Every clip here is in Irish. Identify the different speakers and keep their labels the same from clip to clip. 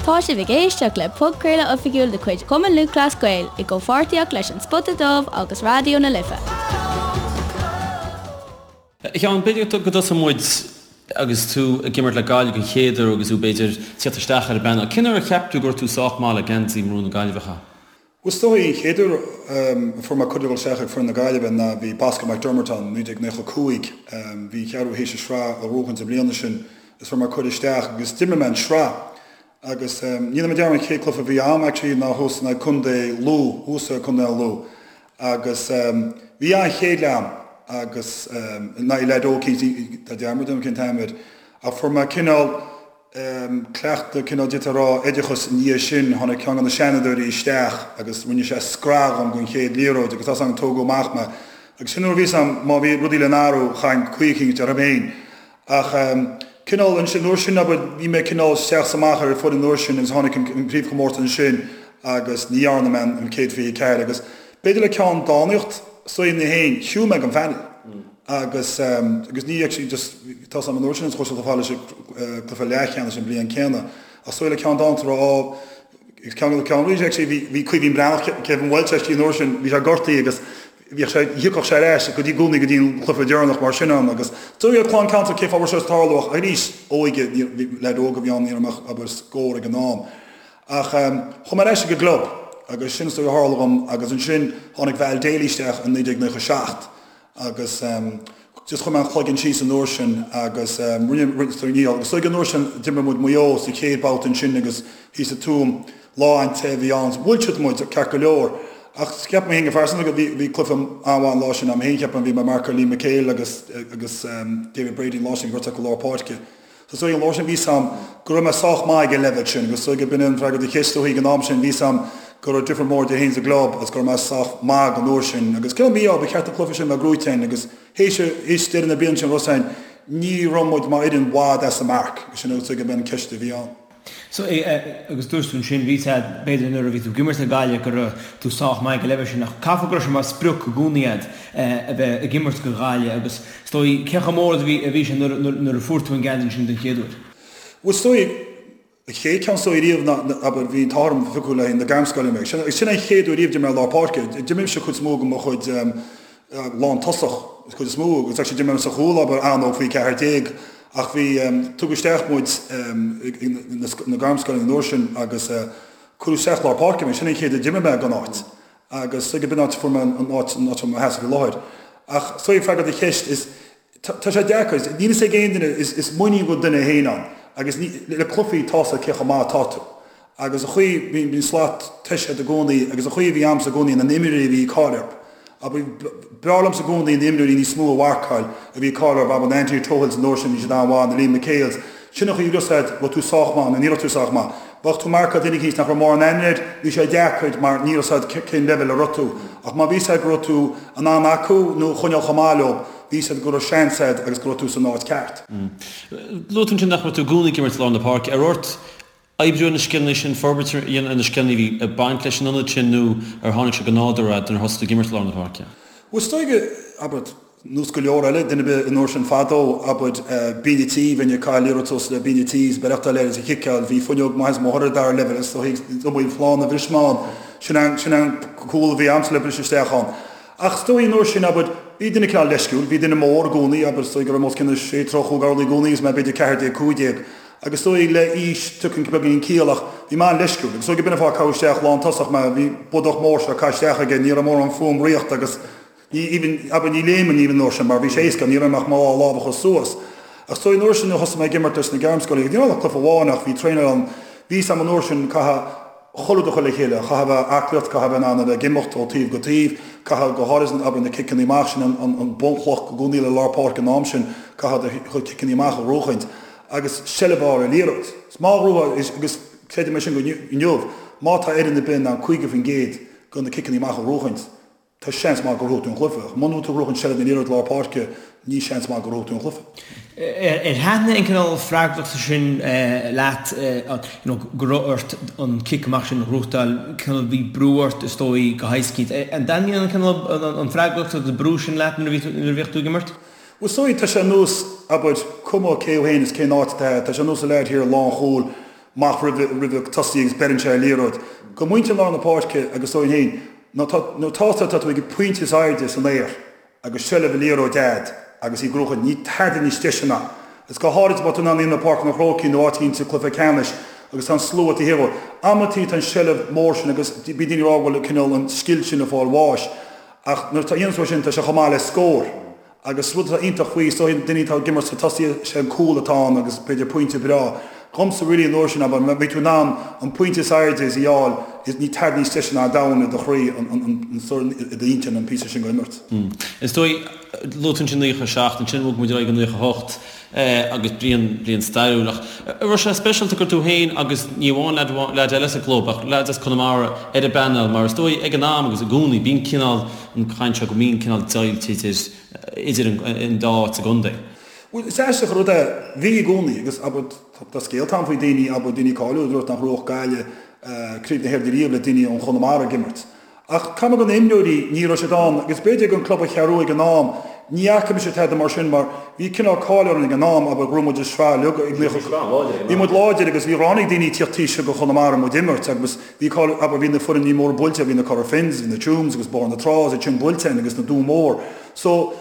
Speaker 1: Tá sibh ag éisteacht le podchraoladh oifigiúil de chuid Chumann Lúthchleas Gael i gcomhpháirtíocht leis An Spota Dubh agus Raidió na Life.
Speaker 2: A Sheáin, b'fhéidir go dtosóidh muid agus tú ag imirt le Gaillimh den chéad uair agus tú b'fhéidir tíocht isteach ar an bpainéal. Cén uair a cheap tú go raibh tú sách maith le geansaí marún na Gaillimhe a chaitheamh?
Speaker 3: Bhuel, is dóigh, an chéad uair a fuair mé cuireadh dul isteach ag foireann na Gaillimhe ná bhí Bosco McDermott ann, 1995. Bhí an Cheathrú théis an sraith a ghnóthachaint an bhliana sin is fuair mé cuireadh isteach agus d'imir mé an sraith. Agus ní dhéanfaidh mé dearmad an chéad cluiche a bhí a'm actually ná thuas in aghaidh Contae Lú, thuas i Contae an Lú. Agus bhí an-chéad leath a'm agus in aghaidh leaid óg cinnte, tá dearmad orm cén t-ainm air, ach fuair mé cineál, cleachtadh, cineál d'fhéadfá a rá, oideachas i ndiaidh sin. Tháinig ceann de na seanfhondúirí isteach agus rinne sé scraith dhom den chéad liathróid agus tá 's agam tógadh amach mé. Agus sin nuair a bhí 's agam má bhí rudaí le n-athrú chaithfinn caoi eicínt orthu féin. Ach cineál ansin, an uair sin abair, bhí mé cineál isteach 's amach ar an foireann an uair sin agus tháinig an craobhchomórtas ansin agus ní dhearna mé an 124 agus b'fhéidir le ceann dánaíocht is dóigh mé féin, shiúil mé den phainéal. Agus agus ní actually just tá 's agam an uair sin is chuaigh siad chomh fada leis an cluiche leathcheannais an bhliain céanna. Ach is dóigh le ceann dánaíocht a rá á agus ceann ceann arís actually bhí bhí Caoimhín Breathnach Kevin Walsh actually an uair sin bhí sé gortaithe agus bhíodh sé thiocfadh sé ar ais go dtí i gcónaí go dtí an cluiche deireanach mar sin ann agus is dóigh le clann ceantar cé fáth a raibh sé ag tarlú ach arís óige ní bhí leaid óg a bhí ann ní raibh mé ach abair scór ag an am. Ach chuaigh mé ar ais ag an gclub agus sin is dóigh a tharla dhom agus ansin tháinig Val Daly isteach in 1997 Agus just chuir mé an cloigeann síos an uair sin agus rinne, rinne, ní, agus is dóigh an uair sin d'imir muid Maigh Eo sa chéad babhta ansin agus thíos sa Tuaim, lá an-te a bhí ann, bhuail siad muid ceart go leor. Ach cheap mé féin go phearsanta go bhí, bhí cluiche an-mhaith an lá sin a'm féin, cheapaim, bhí mé ag marcáil Liam McHale agus, agus David Brady an lá sin, gortaithe acu lár páirce. Is dóigh an lá sin bhí 's a'm go raibh mé sách maith ag an leibhéal sin agus is dóigh b'in an freagra do cheist ó ag an am sin bhí 's a'm go raibh difear mór idir féin is an gclub agus go raibh mé sách maith an uair sin agus cén mí-ádh ba cheart an cluiche sin a bheith gnóite againn agus théis théis deireadh na bliana sin raibh 's a'inn ní raibh muid mar fhoireann i bhfad as an marc agus sin is dóigh b'in an ceist a bhí ann.
Speaker 4: So, agus dúirt tú ansin, bhí 's a'd, b'fhéidir nuair a bhí tú ag imirt le Gaillimh go raibh tú sách maith ag an leibhéal sin ach caithfidh go raibh sé mar sprioc i gcónaí a'd a bheith ag imirt do Ghaillimh agus is dóigh, cé chomh mór a bhí a bhí sé nuair nuair a fuair tú an geansaí sin den chéad uair?
Speaker 3: Bhuel is dóigh, an chéad ceann is dóigh riamh ná, abair, bhí an t-ádh orm phiocadh le haghaidh na gairmscoile mé. Sin sin an chéad uair riamh d'imir mé i lár páirce. D'imir mise cuid is mó de mo chuid lántosach, cuid is mó, agus actually d'imir mé sa chúl, abair, an-óg faoi 14, ach bhí, tugadh isteach muid na gairmscoileanna an uair sin agus cuireadh isteach lár páirce mé, sin an chéad uair a d'imir mé don áit agus is dóigh b'in áit a fuair mé an áit, an áit i mo sheasamh i láthair. Ach is dóigh freagra do cheist is, tá sé deacair, níl fhios ag aon duine, is muinín don duine féin ann agus ní, le cluichí tá 's a'd cé chomh maith atá tú. Agus an chaoi, bhí, bhí an slat tomhaiste i gcónaí agus an chaoi a bhí a'msa i gcónaí na n-imreoirí a bhí cáil orthu. Abair, b'fhearr liomsa i gcónaí na imreoirí níos mó a mharcáil a bhí cáil orthu, abair na Anthony Tohills an uair sin, bhí siad an-mhaith, na Liam McHales. Sin an chaoi a raibh 's a'd, raibh tú sách maith nó ní raibh tú sách maith. Bheadh tú marcáil duine eicínt nach raibh mórán aithne air, bhí sé deacair mar ní raibh 's a'd cén leibhéal a raibh tú. Ach má bhí 's a'd go raibh tú in ann acu nó choinneáil chomh maith leo, bhí 's a'd go raibh seans a'd agus go raibh tú san áit ceart.
Speaker 2: Luaigh tú ansin nach raibh tú i gcónaí ag imirt i lár na páirce. An raibh ort oibriú ar na scileanna sin, forbairt a dhéanamh ar na scileanna a bhí ag baint leis an ionad sin nó ar tháinig sé go nádúrtha nuair a thosaigh tú ag imirt i lár na páirce?
Speaker 3: Bhuel, is dóigh, abair, nós go leor eile, duine ar bith an uair sin fadó, abair, bíonn an tí, bheinn ag caitheamh liathróid suas le binn an tí is beireachtáil air is a chiceáil, bhí fuinneog maith is mo thoradh dara leibhéal is dóigh, is iomaí flann a bhris mé ann, sin an, sin an cúl a bhí a'msa le briseadh isteach ann. Ach is dóigh an uair sin, abair, bhí duine cineál leisciúil, bhí duine mór i gcónaí, abair, is dóigh go raibh mé os cionn sé troigh chúig orlaí i gcónaí agus mé b'fhéidir 14, 15. Agus is dóigh le aois tiocfaidh beagáinín ciall ach bhí mé an-leisciúil agus is dóigh go b'in an fáth a caitheadh isteach lántosach mé, bhí bodach mór seo caith isteach aige, ní raibh mórán fúm ritheacht agus ní even, abair ní léiminn even an uair sin mar bhí sé éasca, ní raibh mé ach mo dhá lámh a chur suas. Ach is dóigh an uair sin nuair a thosaigh mé ag imirt leis na gairmscoileanna, ní raibh ach cluiche amháin ach bhí traenáil ann, bhí 's a'm an uair sin caithfidh chuile rud a chur le chéile, caithfidh a bheith aclaíocht, caithfidh a bheith in ann a bheith ag imeacht ó taobh go taobh, caithfidh go háirithe abair na ciceanna amach sin an an bunchloch i gcónaí le lár páirce an am sin, caithfidh do chuid ciceanna amach a ghnóchaint. agus seilbh a fháil ar liathróid. Is má ghnóthaíonn, agus creidim é sin go inniu, má tá fhoireann ar bith in ann 50% de na ciceanna amach a ghnóchaint, tá seans maith go ngnóthóidh tú an cluiche. Ach muna bhfuil tú ag gnóchaint seilbh na liathróide lár páirce, ní seans maith go ngnóthóidh tú an cluiche.
Speaker 4: Ar thaitnigh an cineál freagrachta sin leat, you know, go raibh ort an cic amach sin a ghnóthachtáil, cineál bhí brú ort is dóigh go héasca. An dtaitníonn an cineál an freagracht agus an brú sin leat nuair a bhíodh tú ag imirt?
Speaker 3: Bhuel, is dóigh, tá sé ar nós, abair, cuma cé thú fhéin is cén áit atá, tá sé ar nós an leaid thiar lánchúil. Amach roimh roimh an tosaí agus beireann sé ar liathróid. Go muintir lár na páirce agus dóigh féin, nuair atá tá tú ag an pointe is airde san aer agus seilbh an liathróid a'd agus í gnóthach, níl tada níos deise ná. Is go háirid má tá tú in ann í i bPáirc an Chrócaigh nó áit éicint sa cluiche ceannais agus tá an slua taobh thiar. Amantaí tá an seilbh mór sin agus bíonn daoine ag rá go bhfuil cineál an scil sin ag fáil bháis ach nuair atá dhéanann tú é sin tá sé chomh maith le scór. Agus rud atá iontach faoi, is dóigh, duine atá ag imirt sa tosaí, sé an cúl atá ann agus b'fhéidir pointe breá. Dhomsa really an uair sin, abair, má bhí tú in ann an pointe is airde is a fháil, is níl tada níos deise ná domhan i do chroí, an sórt i d'intinn an píosa sin go imirt.
Speaker 2: Is dóigh, luaigh tú ansin 97, ansin bhog muid ar aghaidh go 98 agus bliain, bliain stairiúil. Ach an raibh sé speisialta gur tú féin agus ní amháin leaid, leaid eile sa gclub ach leaid as Conamara ar an bpainéal mar is dóigh ag an am agus i gcónaí bíonn cineál, an chaint seo go mbíonn cineál deighilt idir idir an dá áit sa gcontae.
Speaker 3: Bhuel, is aisteach an rud é, bhí i gcónaí, agus abair, tá scéalta ann faoi daoine, abair, daoine cáiliúla a dúirt nach mbuafadh Gaillimh Craobh na hÉireann riamh le daoine ón Chonamara ag imirt. Ach caithfidh mé go na imreoirí, ní raibh siad ann, agus b'fhéidir ag an club an Cheathrú Rua ag an am, ní fhaca mise tada mar sin mar bhí cineál cáil orainn ag an am, abair, ghnóthaigh muid an sraith uilig ag 90, bhí muid láidir agus bhí ráinig daoine ag tíocht taobh seo go Chonamara muid imirt agus Bhí cáil, abair, bhí na foirne móra buailte, bhí na Cora Finns, bhí na Tuaim agus Bóthar na Trá is iad sin buailte againn agus na Dún Mór. So,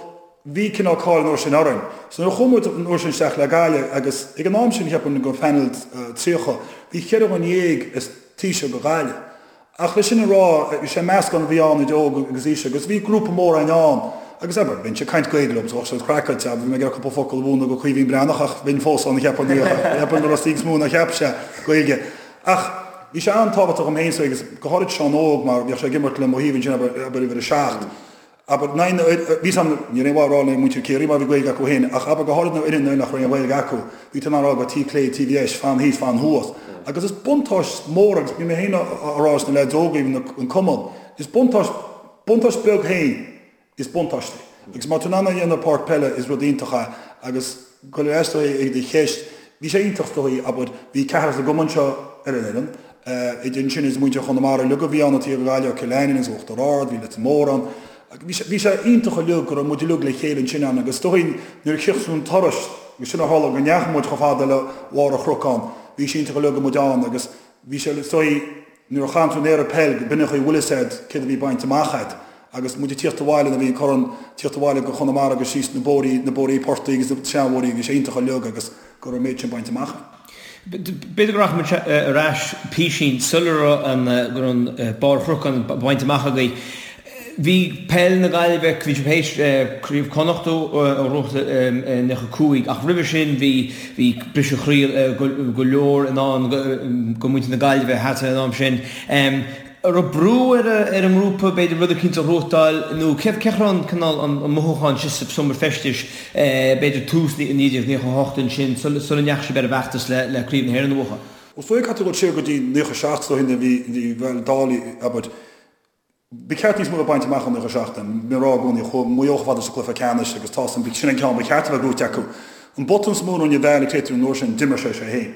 Speaker 3: bhí cineál cáil an uair sin orainn. So nuair a chuaigh muid an uair sin isteach le Gaillimh agus ag an am sin cheapfainn go phainéal 30, bhí cheithre dhuine dhéag as taobh seo go Gaillimh. Ach le sin a rá, sé meascán a bhí ann idir óg agus aois agus bhí grúpa mór againn ann agus abair, bheinnse ag caint Gaeilge leo, bheadh siad craiceáilte, abair, bhí mé ag iarraidh cúpla focal a mhúineadh go Caoimhín Breathnach ach bheinn fós ann cheapfainn, cheapfainn go raibh níos mó ná cheap sé Gaeilge. Ach bhí sé an-tábhachtach dom féin agus go háirid Seán Óg mar bhíodh sé ag imirt le mo thaobh ansin abair, abair uimhir a 7. Abair, na, na, bhí san, ní raibh aon mhaith a rá le muintir Ciarraí mar bhí Gaeilge acu féin ach abair go háirid na fhoireann nach raibh aon Ghaeilge acu, bhí tú in ann a rá go taobh clé, taobh dheis, fan thíos, fan thuas. Agus is buntáiste mór agus bhí mé féin á rá leis na leaids óga, even an cumann, is buntáiste, buntáiste beag féin Is buntáiste é. Agus má tá tú in ann é a dhéanamh ar pháirc peile is rud iontach é agus go leor is dóigh ag do cheist, bhí sé iontach is dóigh, abair, bhí ceathrar sa gcumann seo ar an fhoireann, idir ansin is muintir Chonamara uilig a bhí ann, taobh Ghaillimh, Cill Ainnín agus Uachtar Ard, bhí Leitir Móir ann. Bhí sé, bhí sé iontach uilig go raibh muid uilig le chéile ansin ann agus is dóigh nuair a chríochnaigh an turas, agus sin a tharla go ndeachaigh muid chomh fada le bharr an Chnocáin, bhí sé iontach uilig go raibh muid ann agus bhí sé is dóigh, Nuair a chaitheann tú an aer ag peil, b'in an chaoi a bhfuil fhios a'd céard a bhí bainte amach a'd. Agus muid ag tíocht abhaile nuair a bhí an corn, tíocht abhaile go Chonamara agus síos na bóithrí, na bóithrí portaigh agus na seanbhóithrí, bhí sé iontach uilig agus go raibh an méid sin bainte amach a'inn.
Speaker 4: B'fhéidir go rachaidh muid ar ais písín sula raibh an, go raibh an barr Chnocáin bainte amach agaibh. Bhí peil na Gaillimhe, bhí sibh théis Craobh Chonnacht a ghnóthachtáil i 95 ach roimhe sin bhí bhí briseadh croí go leor i ndán go muintir na Gaillimhe thart ar an am sin. An raibh brú ar an ngrúpa b'fhéidir rud eicínt a ghnóthachtáil nó cé cé raibh an cineál an mothúchán sin sa seomra feistis b'fhéidir tús 1998 ansin sula ndeachaigh sibh ar an bhfeachtas le Craobh na hÉireann a bhuachan?
Speaker 3: Is dóigh caithfidh tú dul siar go dtí 97 is dóigh nuair a bhí bhí bhuel Dálaí abair Ba cheart níos mó a bheith bainte amach i 97. Bím ag rá i gcónaí, chuaigh Maigh Eo chomh fada sa cluiche ceannais agus tá san, sin an ceann ba cheart a bheith gnóite acu. An botún is mó a rinne Val ag Clayton an uair sin, d'imir sé sé féin.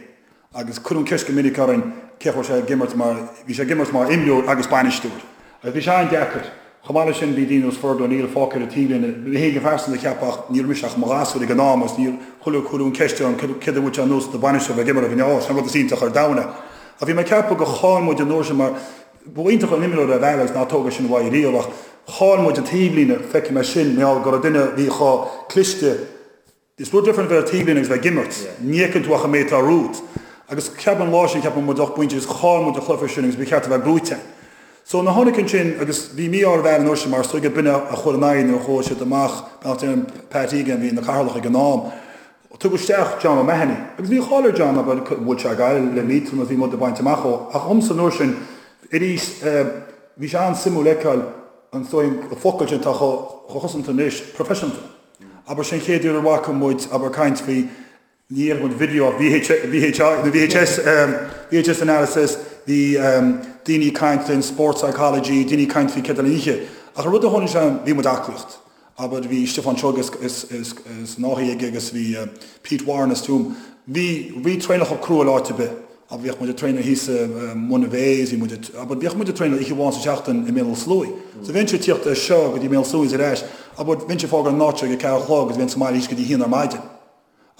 Speaker 3: Agus cuireadh an ceist go minic orainn cén chaoi a raibh sé ag imirt mar, bhí sé ag imirt mar imreoir agus bainisteoir. Agus bhí sé an-deacair. Chomh maith leis sin bhí daoine nós Fergal O'Neill fágtha ar an taobhlíne. Mé féin go pearsanta ag ceapadh ach ní raibh mise ach i mo ghasúr ag an am agus níor chuile cuireadh an ceist orm céard a bhfuil sé ar nós do bainisteoir bheith ag imirt ag an ard, sin an rud is iontach ar domhan é. Ach bhí mé ag ceapadh gur chaill muid an uair sin mar, Ba iontach an imreoir é Val agus ná tóg é sin uaidh riamh ach chaill muid an taobhlíne, feicfidh mé sin, mar gheall go raibh duine a bhí chomh cliste, is rud difriúil a bheith ar taobhlíne agus bheith ag imirt, ní fheiceann tú ach an méid atá romhat. Agus ceapaim an lá sin, ceapaim muid 8 bpointe agus chaill muid an cluiche sin agus ba cheart a bheith gnóite. So nuair a tháinig ansin agus bhí mí-ádh ar Val an uair sin mar is dóigh gur b'in a chuir in aghaidh nuair a chuaigh siad amach, beannacht Dé ar Pat Egan a bhí ina chathaoirleach ag an am, Tugadh isteach John O'Mahony agus bhí cáil ar John abair bhuaigh sé Gaillimh le Liatroim agus bhí muid ag baint amach ó ach dhomsa an uair sin arís bhí sé an-suimiúil fheiceáil an is dóigh an focal sin atá chomh cosanta anois, proifisiúnta. Abair sin an chéad uair a bhfaca muid abair caint faoi ní dhéarfaidh muid video ach VH, VHI nó VHS VHS analysis bhí daoine ag caint faoin sport psychology, daoine ag caint faoi céard a oíche ach an rud a tháinig sé bhí muid aclaíocht. Abair, bhí Stiofán Seoige as an Áth aige agus bhí Pete Warren as Tuaim. Bhí, bhí traenálacha crua le áit ar bith. Abair, bhíodh muid ag traenáil thíos i Monivea agus bhí muid ag, abair, bhíodh muid ag traenáil oíche amháin sa tseachtain i mBéal Átha Sluaighe. So bheinnse ag tíocht as seo go dtí Béal Átha Sluaighe is ar ais. Abair, bheinnse ag fágáil an áit seo ag a ceathair a chlog agus bheinn sa mbaile thíos go dtí a haon ar maidin.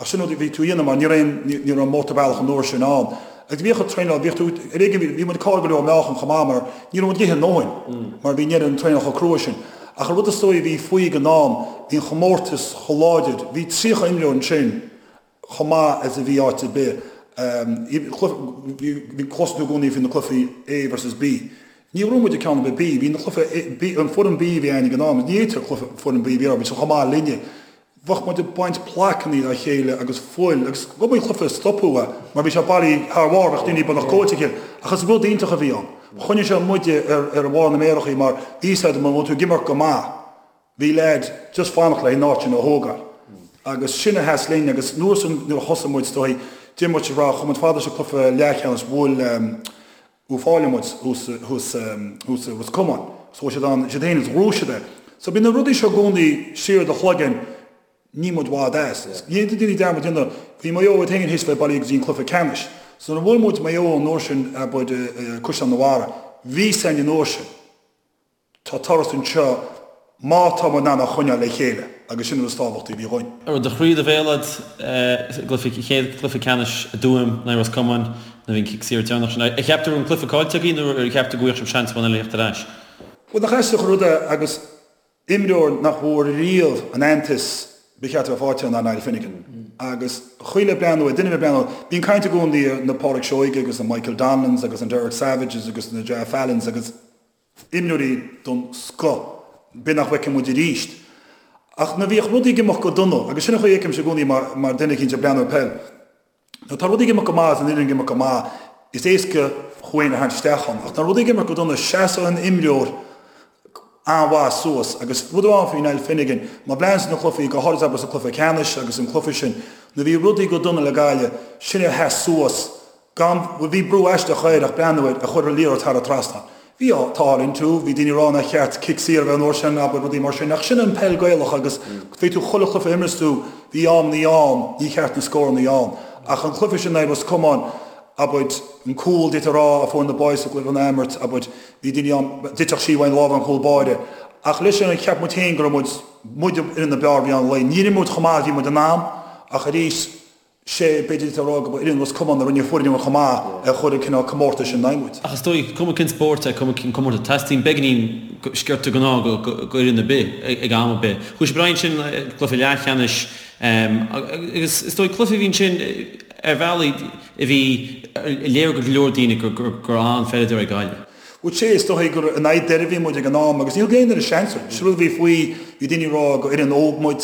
Speaker 3: Ach sin rud a bhí tú a dhéanamh mar ní raibh aon, ní raibh an mótarbhealach an uair sin ann. Agus bhíodh an traenáil, bhíodh tú, ar éigean, bhí muid ag cailleadh go leor meáchan chomh maith mar ní raibh muid ag ithe a ndóthain mar bhí an an traenáil chomh crua sin. Ach an rud is dóigh a bhí faoi ag an am, bhí an chomórtas chomh láidir, bhí 30 imreoir ansin chomh maith as a bhí áit ar bith. Bhí, cloiseann tú i gcónaí faoi na cluichí A versus B. Ní raibh muid ag ceann ar bith B, bhí na cluiche B, an foireann B a bhí againn ag an am, ní fhéadfadh cluiche foireann B a bhí ann, bhí siad chomh maith linne. Bheadh muid ag baint plaiceanna dá chéile agus fuil agus go mbeadh cluiche stopadh é mar bhí sé bailí thar bharr, bheadh daoine beagnach goilte a chéile. Ach is rud iontach a bhí ann. Choinnigh sé muide ar bharr na méarachaí mar bhí fhios agat má bhí tú ag imirt go maith, bhí leaid just fanacht le an áit sin a thógáil. Agus sin a sheas linn agus nuair san nuair a thosaigh muid is dóigh, d'imir muid sa sraith, chuaigh muid fada sa cluiche leathcheannais, bhuail Uíbh Fhailí muid thuas thuas thuas i Ros Comáin. So siad ann, siad féin is ghnóthaigh siad é. So bíonn na rudaí seo i gcónaí siar i do chloigeann, níl muid i bhfad as. Ní fhéadfaidh daoine dearmad a dhéanamh, bhí Maigh Eo iad féin théis bheith bailithe go dtí an cluiche ceannais. So nuair a bhuail muid Maigh Eo an uair sin abair i Caisleán na Mhara, bhí fhios againn an uair sin. Tá turas anseo má tá muid in ann a choinneáil le chéile agus sin an rud is tábhachtaí a bhí dhúinn.
Speaker 2: An raibh do chroí i do bhéal agat sa gcluiche, chéad chluiche ceannais i dTuaim in aghaidh Ros Comáin nuair a bhí an cic saor deireanach sin. Ar cheap tú go raibh an cluiche caillte agaibh nó ar cheap tú go bhfaigheadh sibh seans amháin eile a theacht ar ais?
Speaker 3: Bhuel, nach aisteach an rud é agus Imreoir nach bhfuair riamh an aitheantas ba cheart a bheith faighte ná Niall Finnegan. Agus chuile breathnú ar duine a bheith breathnú, bíonn caint i gcónaí ar na Pádraic Seoige agus na Michael Donnellans agus an Derek Savages agus na Ger Fallons agus imreoirí den scoth, b'fhéidir nach bhfeicfidh muid arís. Ach nuair a bhíodh rudaí ag imeacht go dona, agus sin an chaoi a fheicimse i gcónaí mar duine eicínt ag breathnú ar peil, Nuair atá rudaí ag imeacht go maith is an fhoireann ag imeacht go maith, is éasca thú féin a tharraingt isteach ann. Ach nuair rudaí ag imeacht go dona, seasann an imreoir an-mhaith suas. Agus rud amháin faoi Niall Finnegan, má bhreathnaíonn tú na cluichí, go háirid abair sa cluiche ceannais agus an cluiche sin, nuair a bhí rudaí go dona le Gaillimh, sin é a sheas suas gan, bhuel bhí brú aisteach air ach breathnú air, a chuir an liathróid thar an trasnán. Bhí an t-ádh linn too, bhí daoine ag rá nár cheart cic saor a bheith an uair sin, abair, rudaí mar sin, ach sin an peil Gaelach agus bhí tú chuile chluiche a imreas tú, bhí amannaí ann, ní cheart na scórannaí ann. Ach an cluiche sin in aghaidh Ros Comáin, abair, an cúl, d'fhéadfá a rá, a fuair na boys sa gcluiche an athimirt, abair, bhí daoine ann, d'fhéadfadh sí uainn lámh an chúl báire. Ach leis sin, cheap muid féin go raibh muid, muid ar na b'fhearr a bhí ann lae. Níor imir muid chomh maith is a bhí muid in ann, ach arís, sé, b'fhéidir a rá go ba fhoireann Ros Comáin a rinne foireann chomh maith a chuir an cineál comórtais in aghaidh muid.
Speaker 2: Ach is dóigh, cuma cén spórt é, cuma cén comórtas, teastaíonn beagáinín sciorta den ádh go fhoireann ar bith ag am ar bith. Chuaigh sibh ar aghaidh ansin cluiche leathcheannais agus is dóigh cluiche a bhí ansin ar bhealaí a bhí léir go leor daoine gur an-pheileadóir é Gaillimh.
Speaker 3: Bhuel, sé, is dóigh gur in aghaidh Doire a bhí muid ag an am agus ní thug aon duine seans orainn. Sin rud a bhí faoi, bhí daoine ag rá gur fhoireann óg muid,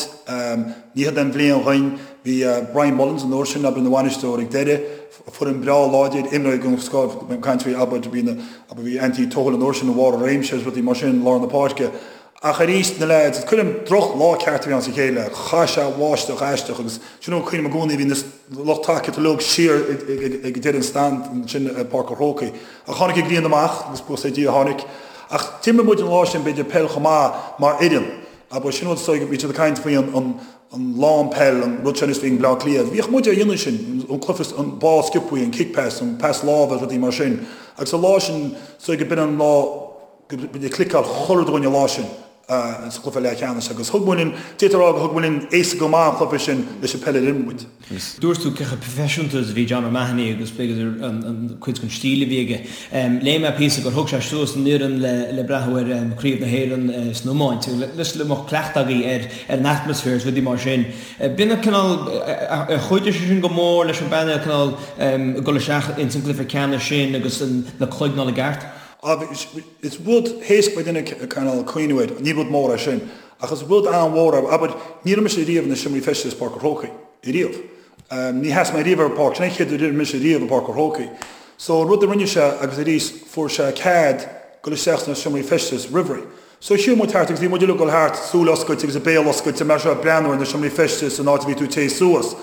Speaker 3: ní hiod an bhliain dhuinn. Bhí Brian Mullins an uair sin, abair, ina bhainisteoir ag Doire, foireann breá láidir, imreoirí den scoth, ag caint faoi, abair, bhí na, abair, bhí Anthony Tohill an uair sin i bharr a réimse agus rudaí mar sin, lár na páirce. Ach arís, na leaids, is cuimhin liom droch lá ceart a bhí ann sa chéad leath. Chaith sé bháisteach aisteach agus sin an cuimhin liom i gcónaí, bhí na lucht tacaíochta uilig siar ag deireadh an stand ansin i Páirc an Chrócaigh. Ach tháinig an ghrian amach agus buíochas le Dia tháinig. Ach d'imir muid an lá sin b'fhéidir peil chomh maith mar fhoireann. Abair, sin rud is dóigh, bhí siad ag caint faoi an an lán peil, an rud sin is bhí ag Bleá Cliath. Bhíodh muid á dhéanamh sin, an cluiche, an ball sciobthaí, an kick pass, an pas láimhe, rudaí mar sin. Agus an lá sin, is dóigh go b'in an lá, go bhí cliceáil chuile dhuine an lá sin sa chluiche leathcheannais agus thug muid linn, d'fhéadfá a rá gur thug muid linn éasca go maith an cluiche sin leis an peil a d'imir muid.
Speaker 4: Dúirt tú cé chomh proifisiúnta is a bhí John O'Mahony agus b'fhéidir an cuid den stíl a bhí aige. Léigh mé píosa gur thug sé suas an fhoireann le breathnú ar Craobh na hÉireann san iomáint le go mbeadh cleachtadh agaibh ar an atmaisféar is rudaí mar sin. B'in an cineál, ar chuidigh sé sin go mór leis an bpainéal cineál dul isteach ins an gcluiche ceannais sin agus na cloigne i gceart?
Speaker 3: Is rud éasca do dhuine cineál cuimhniú air, ní rud mór é sin, ach is rud an-mhór é. Abair, ní raibh mise riamh ina seomraí feistis Páirc an Chrócaigh, riamh. Ní sheas mé riamh ar an bpáirc, sin é an chéad uair a d'imir mise riamh i bPáirc an Chrócaigh. So, an rud a rinne sé, agus arís, fuair sé cead dul isteach sna seomraí feistis roimh ré. So, shiúil muid thart agus bhí muid uilig ag dul thart, súil oscailte agus a béal oscailte, mar seo, ag breathnú ar na seomraí feistis, an áit a bhí tú ag téigh suas.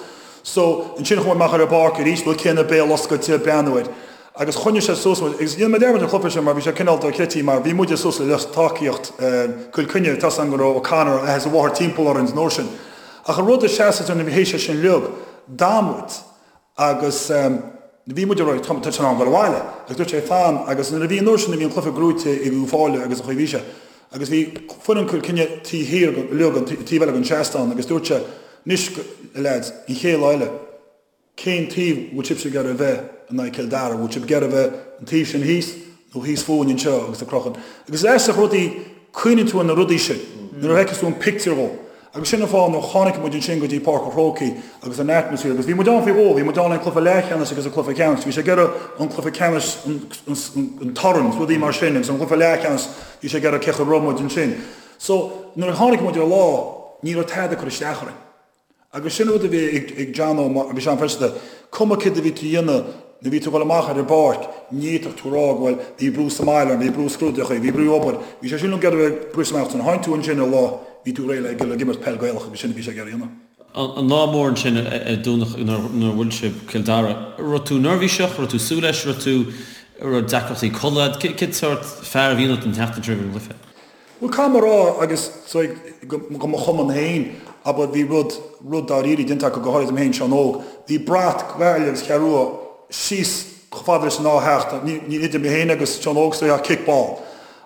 Speaker 3: So, ansin chuaigh muid amach ar an bpáirc arís, rud céanna, béal oscailte, ag breathnú air. Agus choinnigh sé suas muid, agus níl mé dearmad an chluiche sin mar bhí sé cineál dochreidte mar bhí muide suas le lucht tacaíocht Chill Chainnigh, tá's agam go raibh O'Connor, a athair is a mháthair timpeall orainn an uair sin. Ach an rud a sheas nuair a bhí théis sé sin uilig, d'fhan muid agus bhí muid ag rá tá sé in am dul abhaile agus dúirt sé fan agus nuair a bhí an uair sin a bhí an cluiche gnóite ag Uíbh Fhailí agus an chaoi a bhí sé agus bhí foireann Chill Chainnigh taobh thiar uilig an taobh eile den seastán agus dúirt sé anois a leaids an chéad lá eile Cén taobh bhfuil sibhse ag iarraidh a bheith? in aghaidh Cill Dara, bhfuil sibh ag iarraidh a bheith an taobh sin thíos nó thíos fúinn anseo agus ag crochadh. Agus is aisteach rudaí, cuimhníonn tú ar na rudaí sin nuair a fheiceas tú an pictiúr dhó. Agus sin an fáth nuair a tháinig muid ansin go dtí Páirc an Chrócaigh agus an atmosphere agus bhí muid ann faoi dhó, bhí muid ann le cluiche leathcheannais agus an cluiche ceannais, bhí sé ag iarraidh an cluiche ceannais an torann, rudaí mar sin agus an cluiche leathcheannais bhí sé ag iarraidh cé chaoi a raibh muid ansin. So nuair a tháinig muid ar lá ní raibh tada ag cur isteach orainn. Agus sin rud a bhí ag Johnno, bhí sé an-phaiseanta, cuma céard a bhí tú a dhéanamh, nuair a bhí tú ag dul amach ar an bpáirc, ní fhéadfadh tú a rá go bhfuil, bhí brú sa mbaile orm, bhí brú scrúduithe, bhí brú obair, bhí sé sin ag iarraidh briseadh amach, nuair a tháinig tú ansin ar lá, bhí tú réidh le ag imirt peil Gaelach agus sin a bhí sé ag iarraidh a dhéanamh.
Speaker 2: An lá mór ansin ar Domhnach nuair a bhuail sibh Cill Dara, raibh tú neirbhíseach, raibh tú súil leis, raibh tú, raibh deacrachtaí codlata agat, cén sórt fear a bhí ionat an tseachtain roimh an gcluiche?
Speaker 3: Bhuel, caithfidh mé a rá, agus do mo chumann féin, abair, bhí rud, rud dáiríre déanta acu, go háirid dom féin, Seán Óg, bhí brat Gaillimh agus Cheathrú Rua síos chomh fada leis an dá theach, ní, ní idir mé féin agus Seán Óg is ach kickball,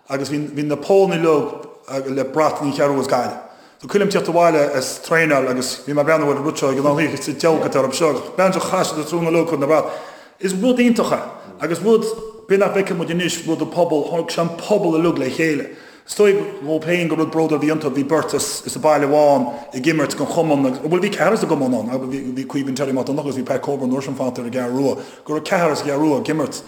Speaker 3: agus bhí, bhí na polanna uilig le brat na Ceathrú Rua is Gaillimh. So cuimhin liom tíocht abhaile as traenáil agus bhí mé ag breathnú ar an rud seo ag an oíche sa deabhadh atá orthu seo agus bean seo chaith siad a trúnna leo chun na brat. Is rud iontach é agus rud b'fhéidir nach bhfeiceann muid anois, rud an pobal, tháinig sé an pobal uilig le chéile. Is dóigh dhóibh féin gur rud bródúil a bhí iontu, bhí beirt as as an baile amháin ag imirt don chumann agus, bhuel bhí ceathrar as an gcumann ann, bhí bhí Caoimhín Terry Mac Donncha agus bhí Pat Coburn an uair sin fanta ar an gCeathrú Rua, go raibh ceathrar as an gCeathrú Rua ag imirt.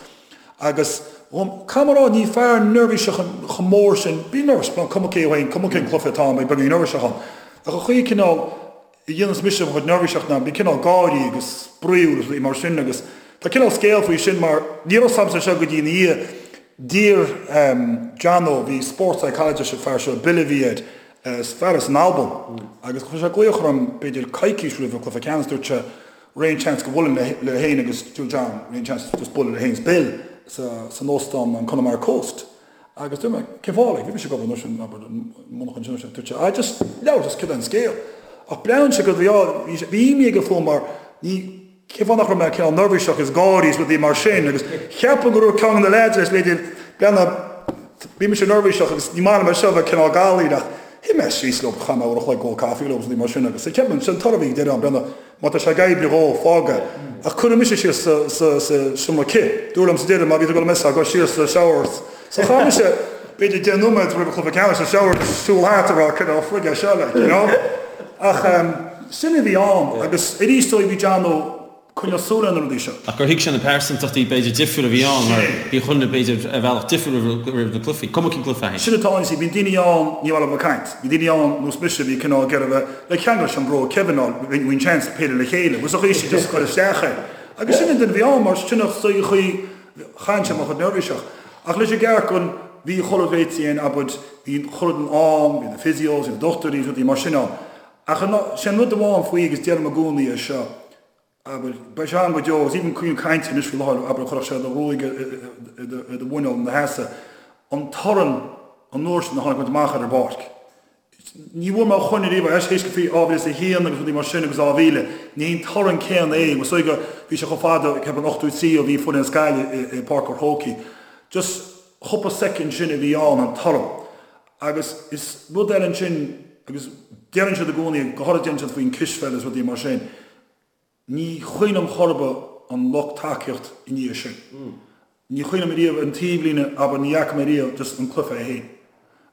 Speaker 3: Agus, caithfidh mé a rá, ní fear neirbhíseach chomh mór sin, bím neirbhíseach, cuma cé féin, cuma cén cluiche atá ann, beidh beagáinín neirbhíseach ann. Ach an chaoi cineál a dhéanas mise mo chuid neirbhíseacht ná bím cineál gáirí agus spraíúil agus rudaí mar sin agus tá cineál scéal faoi sin mar ní raibh 's agamsa seo go dtí ina dhiaidh. D'iarr Johnno, bhí sports psychologist an fear seo, Bill a bhí air, fear as an Albain agus chuir sé glaoch orm b'fhéidir coicís roimh an cluiche ceannais, dúirt sé, Raibh aon chance go mbuailfinn le féin agus dúirt John, raibh aon chance just bualadh le féin is Bill sa san óstán an Connemara Coast. Agus dúirt mé, cén fáth like, bhí mise ag obair an uair sin, abair, i monarcha ansin, dúirt sé, ah just labhairt just céard é an scéal. Ach breathnaíonn sé go bhí bhí sé, bhí imní aige fúm mar ní, cén fáth nach raibh mé cineál neirbhíseach is gáirí is rudaí mar sin agus cheapfainn go raibh ceann de na leaids leis b'fhéidir, breathnaigh, bhí mise neirbhíseach agus ní maith liom é seo a bheith cineál galaí ach shuigh mé síos leo, chaith mé uair a chloig ag ól caife leo agus rudaí mar sin agus ceapaim, sin an toradh a bhí ag deireadh an breathnaigh, Má tá sé ag oibriú dhó, fág é. Ach cuireadh mise síos sa seomra cith. Dúradh liom sa deireadh, má bhí tú ag dul a mess-áil, gabh siar sa shower. So chaith mise b'fhéidir 10 nóiméad roimh an chluiche ceannais sa shower ag siúl thart ag rá cad é frig é seo like, you know? Ach sin a bhí ann agus arís dóigh bhí Johnno coinneáil súil ar na rudaí seo.
Speaker 2: Ach gur thuig sé na pearsantachtaí b'fhéidir difriúil a bhí ann mar bhí chuile dhuine b'fhéidir ar bhealach difriúil roimh na cluichí, cuma cén cluiche é.
Speaker 3: Sin atá ann, you see, bíonn daoine ann ní maith leo bheith ag caint. Bhí daoine ann nós mise a bhí cineál ag iarraidh bheith le ceangal leis an bro Kevin ná bhí an seans péire le chéile, was a chaoi sin just cur isteach é. Agus sin an duine a bhí ann mar sin an chaoi chaith sé mo chuid neirbhíseach. Ach leis an gceart gon bhí chuile réití ann abair, bhí chuile duine ann, bhí na physios, bhí na dochtúirí, rudaí mar sin ann. Ach sin rud amháin faoi agus deirim i gcónaí é seo, abair, beidh sé ann go deo agus even cuimhním caint anois faoi láthair, abair, chuirfeadh sé do ghruaig i do mhuineál ina sheasamh, an torann an uair sin a tháinig muid amach ar an bpáirc. Ní bhfuair mé chun ariamh é, théis go faoi 2001 agus rudaí mar sin agus 2000, ní hé an torann céanna é, was go bhí sé chomh fada, ceapaim 83 ó bhí foireann as Gaillimh i bPáirc an Chrócaigh. Just chúpla soicind sin a bhí ann, an torann. Agus is rud eile ansin, agus deireann siad i gcónaí, go háirithe deireann siad faoin cispheil is rudaí mar sin, ní chuimhin liom chor ar bith an lucht tacaíocht i ndiaidh sin. Ní chuimhin liom ariamh an taobhlíne, abair, ní fhaca mé ariamh just an cluiche é féin.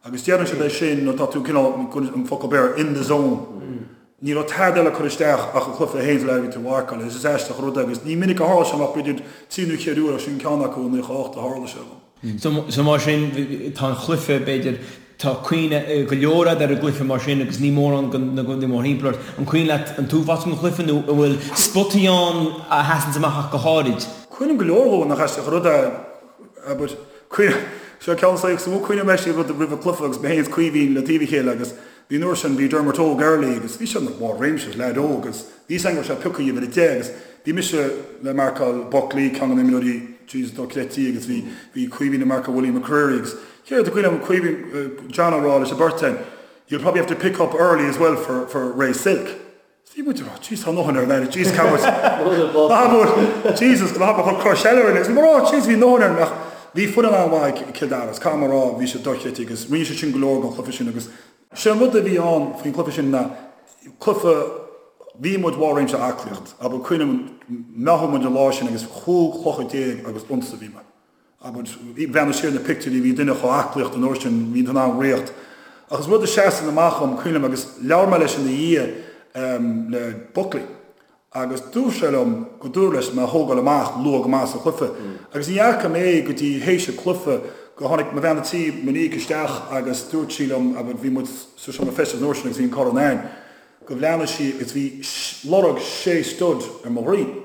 Speaker 3: Agus deireann siad é sin nuair atá tú cineál, an focal Béarla, in the zone. Ní raibh tada eile ag cur isteach ach an cluiche é féin sa leath a bhí tú a mharcáil. Is aisteach an rud é agus ní minic a tharla sé ach b'fhéidir trí nó cheithre uair ach sin ceann acu i 98 a tharla sé dom.
Speaker 4: So mar sin, tá an chluiche, b'fhéidir, tá cuimhne go leor agat ar an gcluiche mar sin agus ní mórán na rudaí mórthimpeall ort. An cuimhin leat an t-uafás den chluiche nó an bhfuil spotaí ann a sheasanns amach ach go háirid?
Speaker 3: Cuimhním go leor dhó, nach aisteach an rud é, abair, cuimhním, seo ceann saghas, is mó cuimhním leis rud roimh an cluiche agus mé féin is Caoimhín le taobh a chéile agus bhí an uair sin, bhí Dermot Óg early agus bhí sé ina bharr réimse, leaid óg agus bhí fhios againn go raibh sé pioctha uimhir a 10 agus bhí mise le marcáil Buckley, ceann de na imreoirí Jesus dochreidte agus bhí bhí Caoimhín ag marcáil Willie McCreery agus céard a cuimhin liom Caoimhín, John ag rá leis an bheirt againn you'll probably have to pick up early as well for for Ray Silke. Bhí muid ag rá Jesus tá ndóthain ar an aire Jesus cá bhfuil ná bhfuil Jesus ná bhfuil cur eile orainn agus bhí muid ag rá Jesus bhí ndóthain ar ach bhí foireann an-mhaith ag Cill Dara is caithfidh mé a rá bhí siad dochreidte agus rinne siad sin go leor den chluiche sin agus sé an rud a bhí ann faoin chluiche sin ná cluiche. Bhí muid bharr réimse aclaíocht, abair, cuimhním, mheáchain muid an lá sin agus 15 chlocha agus unsa bhí mé. Abair, bhreathnaigh siar na pictiúirí, bhí duine chomh aclaíocht an uair sin, bhí tú in ann ritheacht. Ach is rud a seasann amach dhom, cuimhním, agus labhair mé leis ina dhiaidh le Buckley agus dúirt sé liom go dúradh leis mé a thógáil amach luath go maith sa chluiche. Agus ní fhaca mé go dtí théis an cluiche go tháinig mo bhean a tí, Monique, isteach agus dúirt sí liom, abair, bhí muid sa seomra feistis an uair sin agus bhí an corn a'inn. go bhleathnaigh sí agus bhí lorg sé stud ar mo dhroim.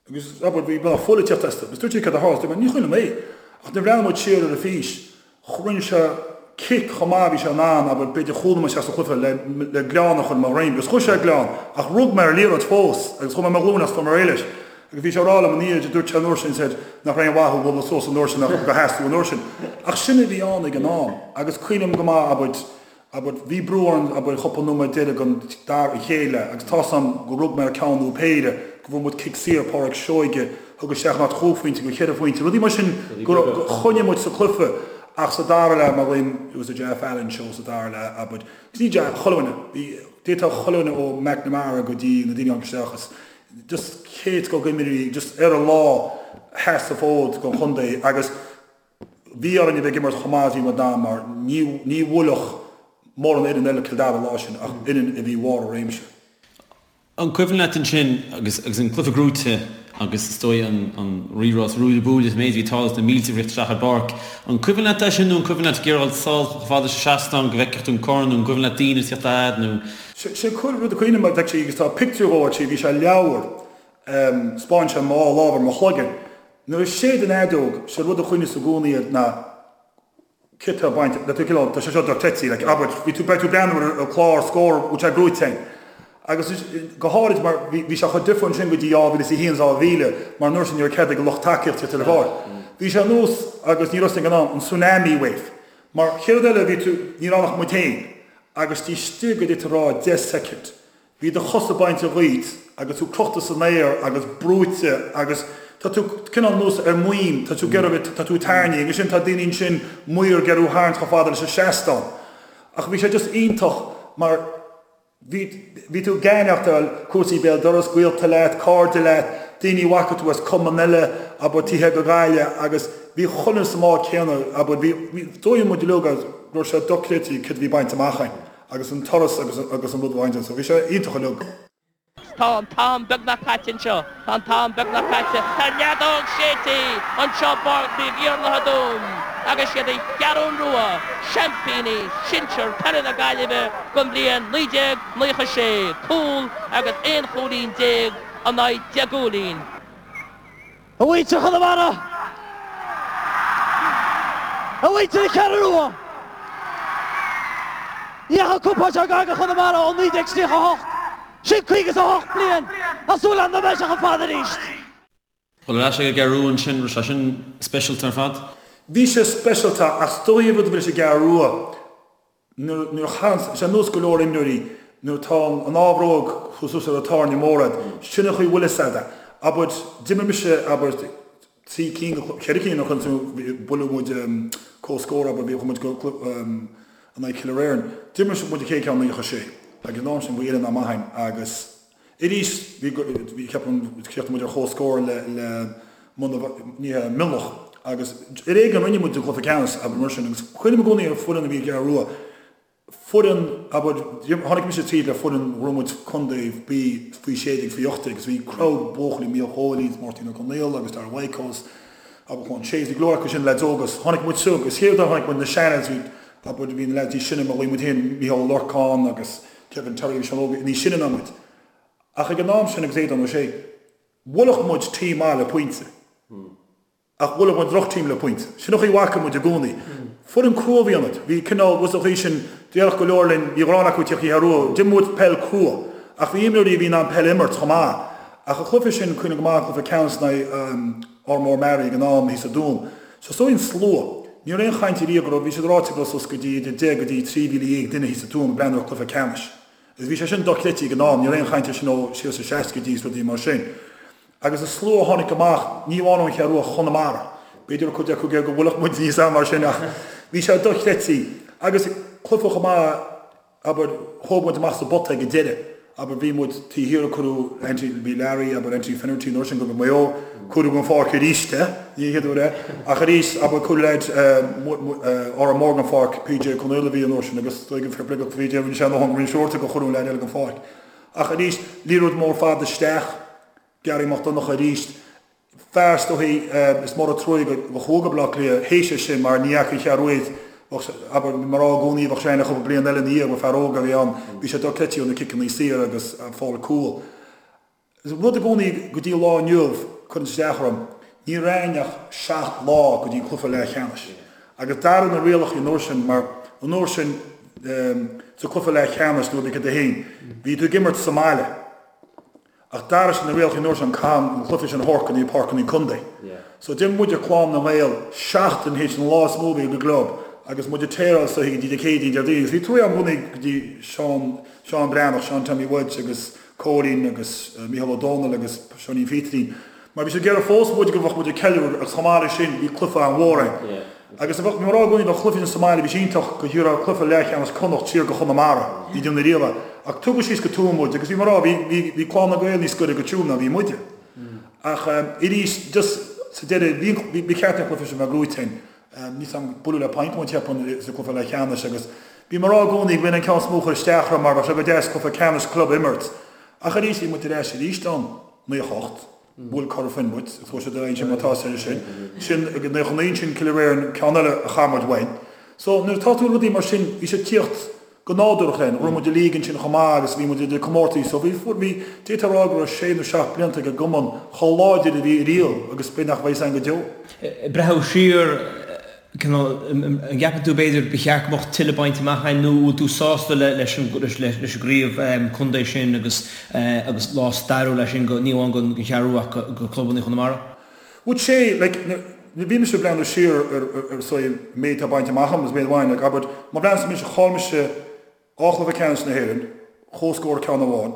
Speaker 3: Agus, abair, bhí beagnach fuil ag tíocht astu. Agus dúirt sí cad a tharla? Dúirt mé, ní chuimhin liom é. Ach nuair a bhreathnaigh muid siar ar an fís, rinne sé cic chomh maith a bhí sé in ann, abair, b'fhéidir chúl nóiméad isteach sa chluiche le, le gleann a chur i mo dhroim. Agus chuir sé gleann, ach rug mé ar an liathróid fós agus chuaigh mé ar mo ghlúin as fuair mé réidh leis. Agus bhí sé ag rá liom ina dhiaidh, dúirt sé an uair sin, said, nach raibh aon mhaith thú bualadh suas an uair sin ach gur sheas tú an uair sin. Ach sin a bhí ann ag an am. Agus cuimhním go maith, abair, Abair, bhí brú orainn, abair, chúpla nóiméad deiridh den dara, an chéad leath, agus tá's a'm go rug mé ar ceann nó péire, go bhfuair muid cic saor, Pádraig Seoige, thug isteach in áit chúig phointe go cheithre phointe, rudaí mar sin go raibh, go choinnigh muid sa cluiche ach sa dara leath, mar ghlaoim, it was the Jeff Allen show sa dara leath, abair, agus ní Jeff, chuile dhuine, bhí, d'fhéadfadh chuile dhuine ó McNamara go dtí na daoine a tháinig isteach is just chéad scoth d'imreoirí just ar a lá, sheas an fód don chontae agus, Bhí orainn a bheith ag imirt chomh maith is bhí muid in ann mar ní bhuailfeadh mórán fhoireann eile Cill Dara an lá sin ach fhoireann a bhí bharr a réimse.
Speaker 2: An cuimhin leat ansin agus agus an cluiche gnóite agus is dóigh an an rírá is ruaille buaille is an méid a bhí ag tarlú is na mílte ag rith isteach ar an bpáirc. An cuimhin leat é sin nó an cuimhin leat ag iarraidh dul sall chomh fada leis an seastán go bhfeicfeadh tú an corn nó an cuimhin leat daoine ag tíocht a fhad nó.
Speaker 3: Sé rud a cuimhním actually agus tá pictiúr dhó actually bhí sé i leabhar 'spáin sé mo lámh ar mo chloigeann Nuair a séid an fheadóg, sé rud a chuimhneos i gcónaí air ná cé tá bainte, le tú cineál, tá sé seo dochreidte, like, abair, bhí tú, beidh tú ag breathnú ar an clár scór, bhfuil sé gnóite a'inn. Agus go háirid mar bhí, bhí sé chomh difriúil ansin go dtí 2001, 2000, mar an uair sin ní raibh cead ag an lucht tacaíochta tíocht ar an bpáirc. Bhí sé ar nós, agus ní raibh ag an am, an tsunami wave. Mar chéad rud eile bhí tú, ní raibh ann ach muid féin, agus taobh istigh de d'fhéadfá a rá 10 soicind, Bhí do chosa bainte dhíot agus tú crochta san aer agus brúite agus tá tú cineál nós ar maoin, tá tú ag iarraidh, tá tú ag tairní agus sin tá daoine ansin maor ag iarraidh thú a tharraingt chomh fada leis an seastán. Ach bhí sé just iontach mar bhí, bhí tú ag aithneachtáil cúrsaí béal dorais, gaolta leat, cairde leat, daoine a bhfaca tú as cumann eile, abair, taobh thiar de Ghaillimh agus bhí chuile dhuine sa mbád céanna, abair, bhí, bhí, dóigh muid uilig go raibh sé dochreidte céard a bhí bainte amach againn. agus an turas agus agus an rud a bhaint so bhí sé iontach uilig.
Speaker 5: Tá an t-am beagnach caite anseo. Tá an t-am beagnach caite. Tá an fheadóg séidte anseo i bPáirc Naomh Iarlaith i dTuaim agus siad an Cheathrún Rua, seaimpíní sinsir peile na Gaillimhe don bhliain 1996, cúl agus aon chúilín déag in aghaidh deich gcúilín.
Speaker 6: A mhuintir Chonamara! A mhuintir na Ceathrún Rua! Ní dheachaigh cupán seo gar do Chonamara ó 1938, sin 58 bliain, tá súil agam nach mbeidh sé chomh fada arís!
Speaker 2: Dul ar ais ag an gCeathrú Rua ansin, raibh sé sin speisialta ar fad?
Speaker 3: Bhí sé speisialta ach is dóigh an rud a bhí leis an gCeathrú Rua, Nuair a chaitheann, sé nós go leor imreoirí, nuair atá an ámhróg chomh suas ar an tairne mór a'd, sin an chaoi bhfuil fhios a'd é. Abair, d'imir mise, abair, trí cinn, ceithre cinn a chun, buaileadh muid comhscór, abair, bhí, chuaigh muid go in aghaidh Cill Oireann. D'imir muid an chéad ceann 96 agus an am sin bhí fhoireann an-mhaith a'inn agus, Arís, bhí, bhí, ceapaim, chríochnaigh muid ar chomhscór le, le ní hea, Mionlach agus ar éigean rinne muid an cluiche ceannais, abair mar sin, agus cuimhním i gcónaí ar foireann a bhí ag an Gceathrú Rua, foireann, abair, tháinig mise tríd le foireann, bhuaigh muid contae B faoi 16, faoi 18 agus bhí crowd buachaillí, Mícheál Chóilí is Máirtín Ó Conaola agus Dara Whitehouse, abair Juan Chase, bhí go leor acu sin, leaids óga, agus tháinig muid suas agus chéad uair a tháinig muid na seanlads, bhí, abair, bhí na leaids níos sine, mar bhí muid féin, Mícheál Ó Lorcáin agus Kevin Terry bhí siad óg, níos sine ná muid. Ach ag an am sin agus Aodán Ó Sé, bhuailfeadh muid team maith le pointe. Ach bhuailfeadh muid droch-team le pointe. Sin an chaoi a bhfaca muid i gcónaí. Foireann crua a bhí ionainn. Bhí cineál, bhfuil a fhios an chaoi sin, déarfadh go leor linn, bhí ghrán acu tíocht Cheathrú Rua. D'imir muid peil crua. Ach bhí imreoirí a bhí in ann peil a imirt chomh maith. Ach an cluiche sin, cuimhním go maith an cluiche ceannais in aghaidh Ardmór Mearaí ag an am thíos sa Dún. Is dóigh an slua. Ní raibh aon chaint ariamh go raibh, bhí siad ráite go raibh suas go dtí idir 10 go dtí 13,000 duine thíos sa Tuaim ag breathnú ar chluiche ceannais. Agus bhí sé sin dochreidte ag an am, ní raibh aon chaint air sin ó siar sna seascaidí is rudaí mar sin. Agus an slua a tháinig amach, ní amháin ón Cheathrú Rua, Chonamara. B'fhéidir go raibh cuid acu ag iarraidh go bhfuilfeadh muid níos am mar sin ach bhí sé dochreidte. Agus cluiche chomh maith, abair, thóg muid amach sa bpota ag an deireadh. Abair, bhí muid taobh thiar, cuireadh Anthony, bhí Larry, abair, Anthony Finnerty an uair sin go Maigh Eo, cuireadh den pháirc arís é, ní an chéad uair é, ach arís, abair, cuireadh leaid Árán Mór den pháirc, PJ Ó Conaola a bhí an uair sin agus is dóigh fair play do PJ, rinne sé a ndóthain go roinnt uaireanta gur cuireadh an leaid eile den pháirc. Ach arís, liathróid mór fada isteach, Gearaí Mac Donncha arís, fear is dóichí is mór an truaighe go chuaigh go Baile Átha Cliath théis é sin mar ní fhaca an Cheathrú Rua bheadh sé, abair, mar rá i gcónaí bheadh sé ann le cúpla bliain eile ina dhiaidh mar fear óg a bhí ann, bhí sé dochreidte ó na ciceanna saor agus fáil cúl. Is rud i gcónaí go dtí an lá inniu cuireann isteach orm, ní raibh ach 7 lá go dtí an cluiche leathcheannais agus d'athraigh na rialacha an uair sin mar an uair sin sa cluiche leathcheannais nuair a bhí 1, bhí tú ag imirt sa mbaile. Ach d'athraigh siad na rialacha an uair sin caithfidh an cluiche sin a thabhairt go dtí páirceanna contae. So d'imir muide Clann na nGael seachtain théis an lá is mó a bhí ag an gclub agus muid ag téaráil istoíche go dtí Dé Céadaoin, Déardaoin agus bhí truaighe agam i gcónaí go dtí Seán, Seán Breathnach, Seán Tommy Wedge agus Cóilín agus Mícheál Ó Dónaill agus Seáinín Phíterín mar bhí siad ag iarraidh fós muid go bheadh muid ag ceiliúradh agus chomh maith leis sin bhí cluiche an-mhór ann. Agus bhí mé ag rá i gcónaí bheadh cluiche sa mbaile, bhí sé iontach go dtabharfá cluiche leathcheannais Connacht siar go Chonamara, ní déanamh riamh é. Ach tugadh síos go Tuaim muid agus bhí mé ag rá, bhí, bhí, bhí Clann na Gael níos gaire go Tuaim ná bhí muide. Ach arís, just sa deireadh, bhí, bhí, ba cheart an cluiche sin bheith gnóite againn. Níl 's a'm, buaileadh le point muid cheapfainn sa cluiche leathcheannais agus bhí mé ag rá i gcónaí go b'in an ceann is mó a chuir isteach orm mar bheadh sé go deas cluiche ceannais club a imirt. Ach arís, bhí muid ar ais arís ann, 98. Bhuail Cora Finne muid, agus chuaigh siad ar aghaidh ansin mar atá sé sin. Sin ag 99 ansin Cill Réirn, ceann eile a chaith muid uainn. So nuair atá tú rudaí mar sin, bhí sé ag tíocht go nádúrach linn. Ghnóthaigh muid an league ansin chomh maith agus bhí muid idir comórtaí. So bhí, fuair, bhí, d'fhéadfá a rá go raibh sé nó seacht blianta ag an gcumann chomh láidir a bhí riamh agus b'fhéidir nach mbeidh san go deo.
Speaker 4: Ag breathnú siar, cineál, an gceapann tú b'fhéidir ba cheart go mbeadh tuilleadh bainte amach againn nó an bhfuil tú sásta leis an leis an gcraobh contae sin agus agus lá stairiúil é sin go ní amháin don Cheathrú Rua ach go clubanna Chonamara?
Speaker 3: Would say like nuair bhí mise ag breathnú siar ar ar ar an méid atá bainte amach agam agus méid amháin like abair má bhreathnaíonn mise chaill mise 2 chluiche ceannais na hÉireann, comhscór ceann amháin,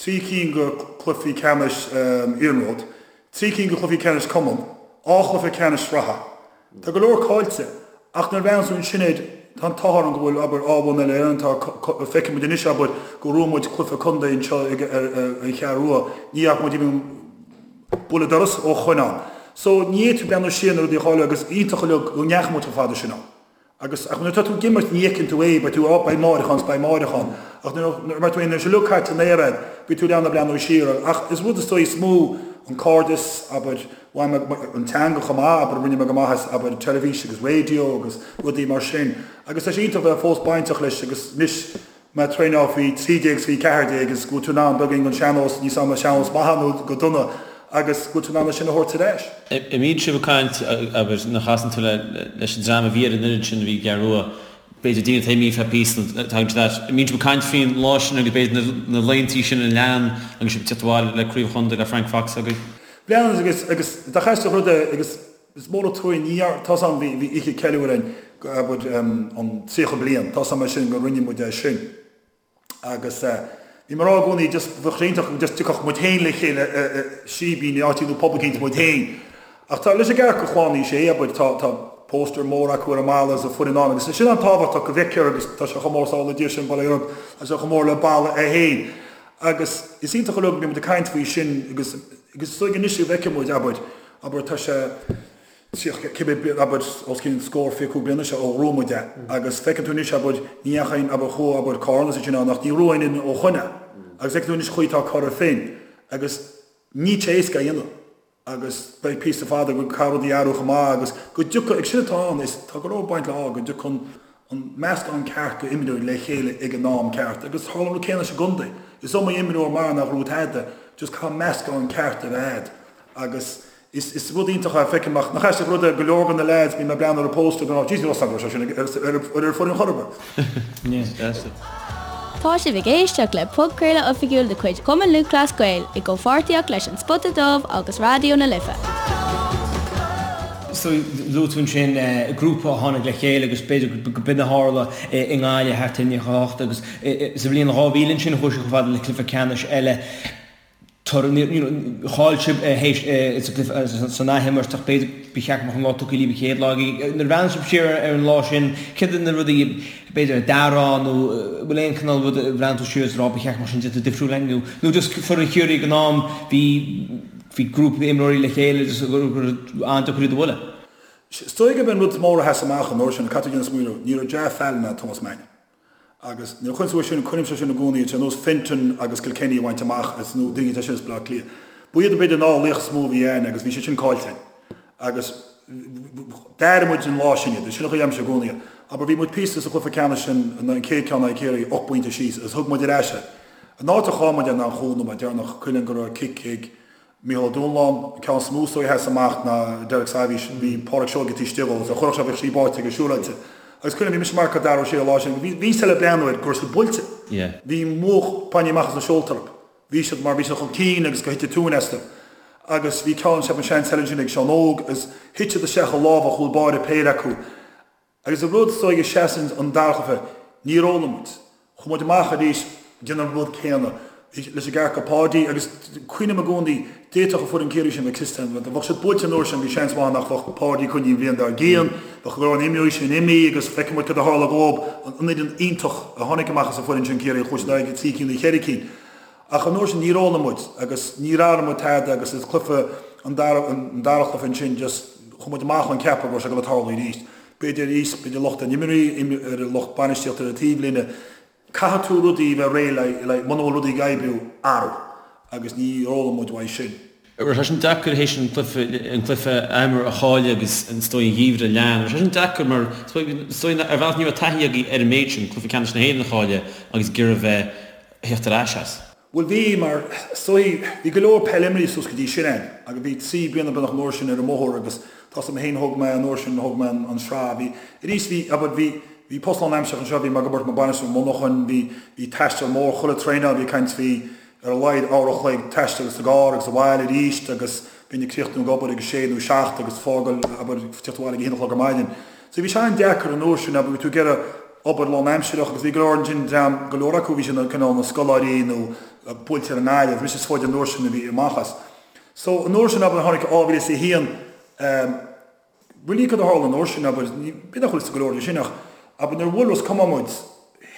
Speaker 3: 3 cinn de chluichí ceannais iarnróid, 3 cinn de chluichí ceannais cumann, 2 chluiche ceannais sraithe. Tá go leor caillte, ach nuair a bhreathnaíonn tú ansin air, tá an t-ádh orainn go bhfuil, abair, dhá bhonn uile Éireann, tá, feicfidh muid anois, abair, go raibh muid cluiche contae anseo ag, ar, an Cheathrú Rua, ní fhaca muid even buille dorais ó shoin ann. So, ní fhéadfaí breathnú siar na rudaí a chailleadh agus iontach uilig go ndeachaigh muid chomh fada sin ann. Agus, ach nuair atá tú ag imirt ní fheiceann tú é, beidh tú, á, beidh amárach ann 's beidh amárach ann. Ach nuair, nuair, mar tú féin, nuair atá sé uilig caite in aer a'd, beidh tú in ann a breathnú siar air. Ach is rud is dóigh is mó an cairdeas, abair, bhain mé, an teanga chomh maith, abair, rinne mé go maith as, abair, teilifís agus raidió agus rudaí mar sin. Agus tá sé iontach bheith fós bainteach leis agus anois, mé ag traenáil faoi 13 is faoi 14 is go bhfuil tú in ann beagáinín den sean-nós, níl 's a'm an sean-nós maith nó go dona, agus go bhfuil tú in ann é sin a thabhairt ar ais.
Speaker 2: An mbíonn sibh ag caint, abair, nuair a chasann tú leis an dream a bhí ar an fhoireann sin a bhí i gCeathrú Rua, b'fhéidir daoine atá imithe feadh píosa nó tagann siad ait, an mbíonn sibh ag caint faoin lá sin agus b'fhéidir na laethantaí sin a lean agus sibh ag tíocht abhaile le craobh chontae le Frank Fox agaibh?
Speaker 3: Bíonn agus agus dá chaisteach rud é agus is mór an truaigh ní tá's a'm bhí bhí oíche ceiliúir againn abair an 30 bliain tá's a'm é sin go rinne muid é sin agus bhí mé ag rá i gcónaí just bheadh sé iontach just tiocfadh muid féin le chéile i síbín i áit nó pub eicínt muid féin ach tá leis an gceart go Chlann Uí Shé abair tá tá póstaer mór acu ar an mballa is an foireann ann agus sin an-tábhachtach go bhfeictear agus tá sé chomh mór sábhála Dia sin baile Europe tá sé chomh mór le balla é féin agus is iontach uilig go mbíonn muid ag caint faoi sin agus agus is dóigh anois go bhfeicfidh muid abair Abair, tá sé 30, cibé bliain, abair, os cionn scór, 25 bliana seo ó ghnóthaigh muid é. Agus feiceann tú anois, abair, ní dheachaigh aon, abair, chuaigh, abair, Corn is sin ann ach ní raibh aon ó shoin. Agus feiceann tú anois chaoi atá Cora Finne. Agus níl sé éasca a dhéanamh. Agus beidh píosa fada go caithfidh rudaí athrú chomh maith agus go dtiocfaidh, ag sin atá ann, is tá go leor baint le ádh, go dtiocfaidh an, an meascán ceart go imreoirí le chéile ag an am ceart agus tharla an rud céanna sa gcontae. Is iomaí imreoir mar nach raibh tada, just caithfidh meascán ceart a bheith a'd agus is is rud iontach é feicim ach nach aisteach rud é go leor de na leaids bím ag breathnú ar an póstaer go raibh Jesus go raibh sé sin ar ar ar foireann chor ar
Speaker 1: bith. Tá sibh ag éisteacht le podchraoladh oifigiúil de chuid Chumann Lúthchleas Gael i gcomhpháirtíocht leis An Spota Dubh agus Raidió na Life.
Speaker 4: So, luaigh tú ansin grúpa a tháinig le chéile agus b'fhéidir go b'in a tharla i nGaillimh thart ar 98 agus sa bhliain 2000 ansin chuaigh siad chomh fada le cluiche ceannais eile. toradh, you know, chaill sibh théis sa gcluiche san athimirt ach b'fhéidir ba cheart go mbeadh an lá tugtha libh an chéad lá. Nuair a bhreathnaíonn sibh siar ar an lá sin, céard iad na rudaí b'fhéidir a d'athrófá nó bhfuil aon chineál rud a bhreathnaíonn tú siar is a rá ba cheart go mbeadh sin déanta difriúil againn nó nó just foireann Chiarraí ag an am bhí bhí grúpa imreoirí le chéile just gur an-deacair iad a bhualadh.
Speaker 3: Is dóigh gurb é an rud is mór a sheas amach an uair sin, caithfidh tú déanamh smaoineamh, ní raibh Jah Fallon ná Thomas Mannion. Agus nuair a chuireann tú é sin, cuirimse sin i gcónaí, ar nós Fenton agus Kilkenny a bhaint amach as nó daoine atá sin as Baile Átha Cliath. Ba iad b'fhéidir an dá laoch is mó a bhí ann agus bhí siad sin caillte againn. Agus d'airigh muid an lá sin iad, sin an chaoi a deirimse i gcónaí. Abair bhí muid píosa sa chluiche ceannais sin, an chéad ceann in aghaidh Ciarraí, 8 bpointe síos agus thug muid ar ais é. An áit a chaill muid é ná an chúl nóiméad deireanach, cuimhin liom go raibh cic ag Mícheál Ó Dúnláin, an ceann is mó is dóigh a sheas amach ná Derek Sairbhís, bhí Pádraig Seoige taobh istigh dhó, agus dá chuirfeadh sé bheadh sí báite aige siúráilte. Agus cuimhin liom, bhí mise ag marcáil Dara Ó Sé an lá sin, bhí bhí siad le breathnú air go raibh siad buailte. Bhí múch bainte amach as na seolta orthu. Bhí siad mar bhí siad chun cinn agus gur thit an tóin astu. Agus bhí ceann, ceapaim seans eile ansin ag Seán Óg agus thit siad isteach i lámha chúl báire péire acu. Agus an rud is dóigh a sheasann an dara cluiche, níor fhoghlaim muid. Chuaigh muid amach arís ag déanamh an rud céanna leis an gceart go Páidí agus cuimhním i gcónaí, d'fhéadfadh an foireann Ciarraí sin bheith cliste, dá mbeadh siad buailte an uair sin bhí seans maith nach mbeadh Páidí coinnithe an bhliain dár gcionn, bheadh go leor na imreoirí sin imithe agus feicfidh muid cad a tharla dhóib, an fhoireann iontach a tháinig amach as an foireann sin Ciarraí, chuaigh siad ar aghaidh go trí cinn nó cheithre cinn. Ach an uair sin níor fhoghlaim muid agus níor athraigh muid tada agus is cluiche an dara an dara cluiche ansin just chuaigh muid amach ón ceapadh go raibh sé ag dul a tarlú arís. B'fhéidir arís, b'fhéidir locht ar na himreoirí, ar an lucht bainistíochta ar an taobhlíne. Caithfidh tú rudaí a bheith réidh le le muna bhfuil rudaí ag oibriú, athrú. Agus níor fhoghlaim muid uaidh sin.
Speaker 2: Raibh sé sin deacair théis an cluiche an cluiche athimirt a chailleadh agus is dóigh an geimhreadh a lean. Raibh sé sin deacair mar is dóigh ar bhealach ní raibh taithí agaibh ar an méid sin, cluiche ceannais na hÉireann a chailleadh agus ag iarraidh bheith theacht ar ais as.
Speaker 3: Bhuel bhí, mar is dóigh, bhí go leor peil imrithe suas go dtí sin ann agus bhí 3 bliana beagnach an uair sin ar an mbóthar agus tá 's agam féin thóg mé an uair sin thóg mé an sraith bhí arís bhí abair bhí bhí post lán-aimseartha anseo bhí mé ag obair mar bainisteoir monarchan bhí bhí taisteal mór chuile traenáil bhí ag caint bhí ar a laghad uair a chloig taistil sa gcarr agus abhaile arís agus bheinn ag críochnú ag obair ag a sé nó 7 agus fágáil abair teacht abhaile ag a haon a chlog ar maidin. So bhí sé an-deacair an uair sin abair bhí tú ag iarraidh obair lán-aimsireach agus bhí go leor ansin dream, go leor acu bhí siad cineál ina scoláirí nó buailte ar an nGaillimh, mise is faide an uair sin a bhí amach as. So an uair sin abair tháinig 2001 ehm really cad a tharla an uair sin abair ní b'fhéidir nach bhfuil fhios ag go leor de sin ach abair nuair a bhuail Ros Comáin muid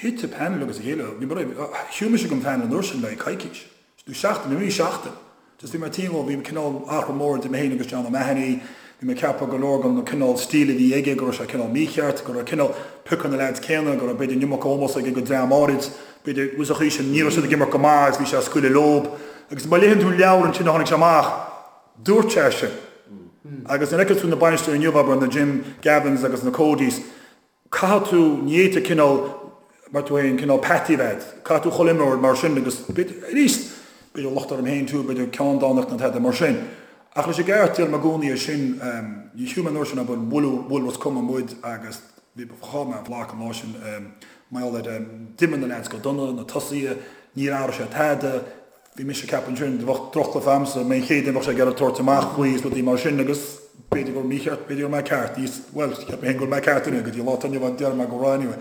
Speaker 3: thit an panel agus a chéile bhí mar shiúil mise den phanel an uair sin le coicís. Nó seachtain, nó seachtain. Just bhí mé tinn dhó, bhí cineál athrú mór idir mé féin agus John O'Mahony, bhí mé ag ceapadh go leor den cineál stíl a bhí aige, go raibh sé cineál mícheart, go raibh cineál piocadh na leaids céanna, go raibh b'fhéidir an iomarca ómós aige go dream áirid, b'fhéidir, bhuel sa chaoi sin, ní raibh siad ag imirt go maith agus bhí sé ag scaoileadh leob. Agus má léann tú an leabhar ansin a tháinig sé amach, dúirt sé sin. Agus nuair a fheiceann tú na bainisteoirí inniu, abair, na Jim Gavins agus na Codys, Caithfidh tú, ní fhéadfá cineál, mar tú féin, cineál peataí a bheith agat. Caithfidh tú chuile imreoir mar sin agus b'fhéidir, arís, b'fhéidir locht orm féin too, b'fhéidir ceanndánacht nó tada mar sin. Ach leis an gceart, deirim i gcónaí é sin, ní shiúil mé an uair sin abair, bhuail, bhuail Ros Comáin muid agus bhí, chaill mé an bhlac an lá sin, mar gheall ar, d'imir na leaids go dona, na tosaithe, níor athraigh sé tada, Bhí mise ag ceapadh ansin, bheadh drochchluiche a'msa, mé an chéad duine bheadh sé ag iarraidh tabhairt amach faoi is rudaí mar sin agus b'fhéidir go raibh mícheart, b'fhéidir go raibh mé ceart, níos, bhuel, cheap mé féin go raibh mé ceart anyway, go dtí an lá atá inniu ann déarfaidh mé go raibh anyway.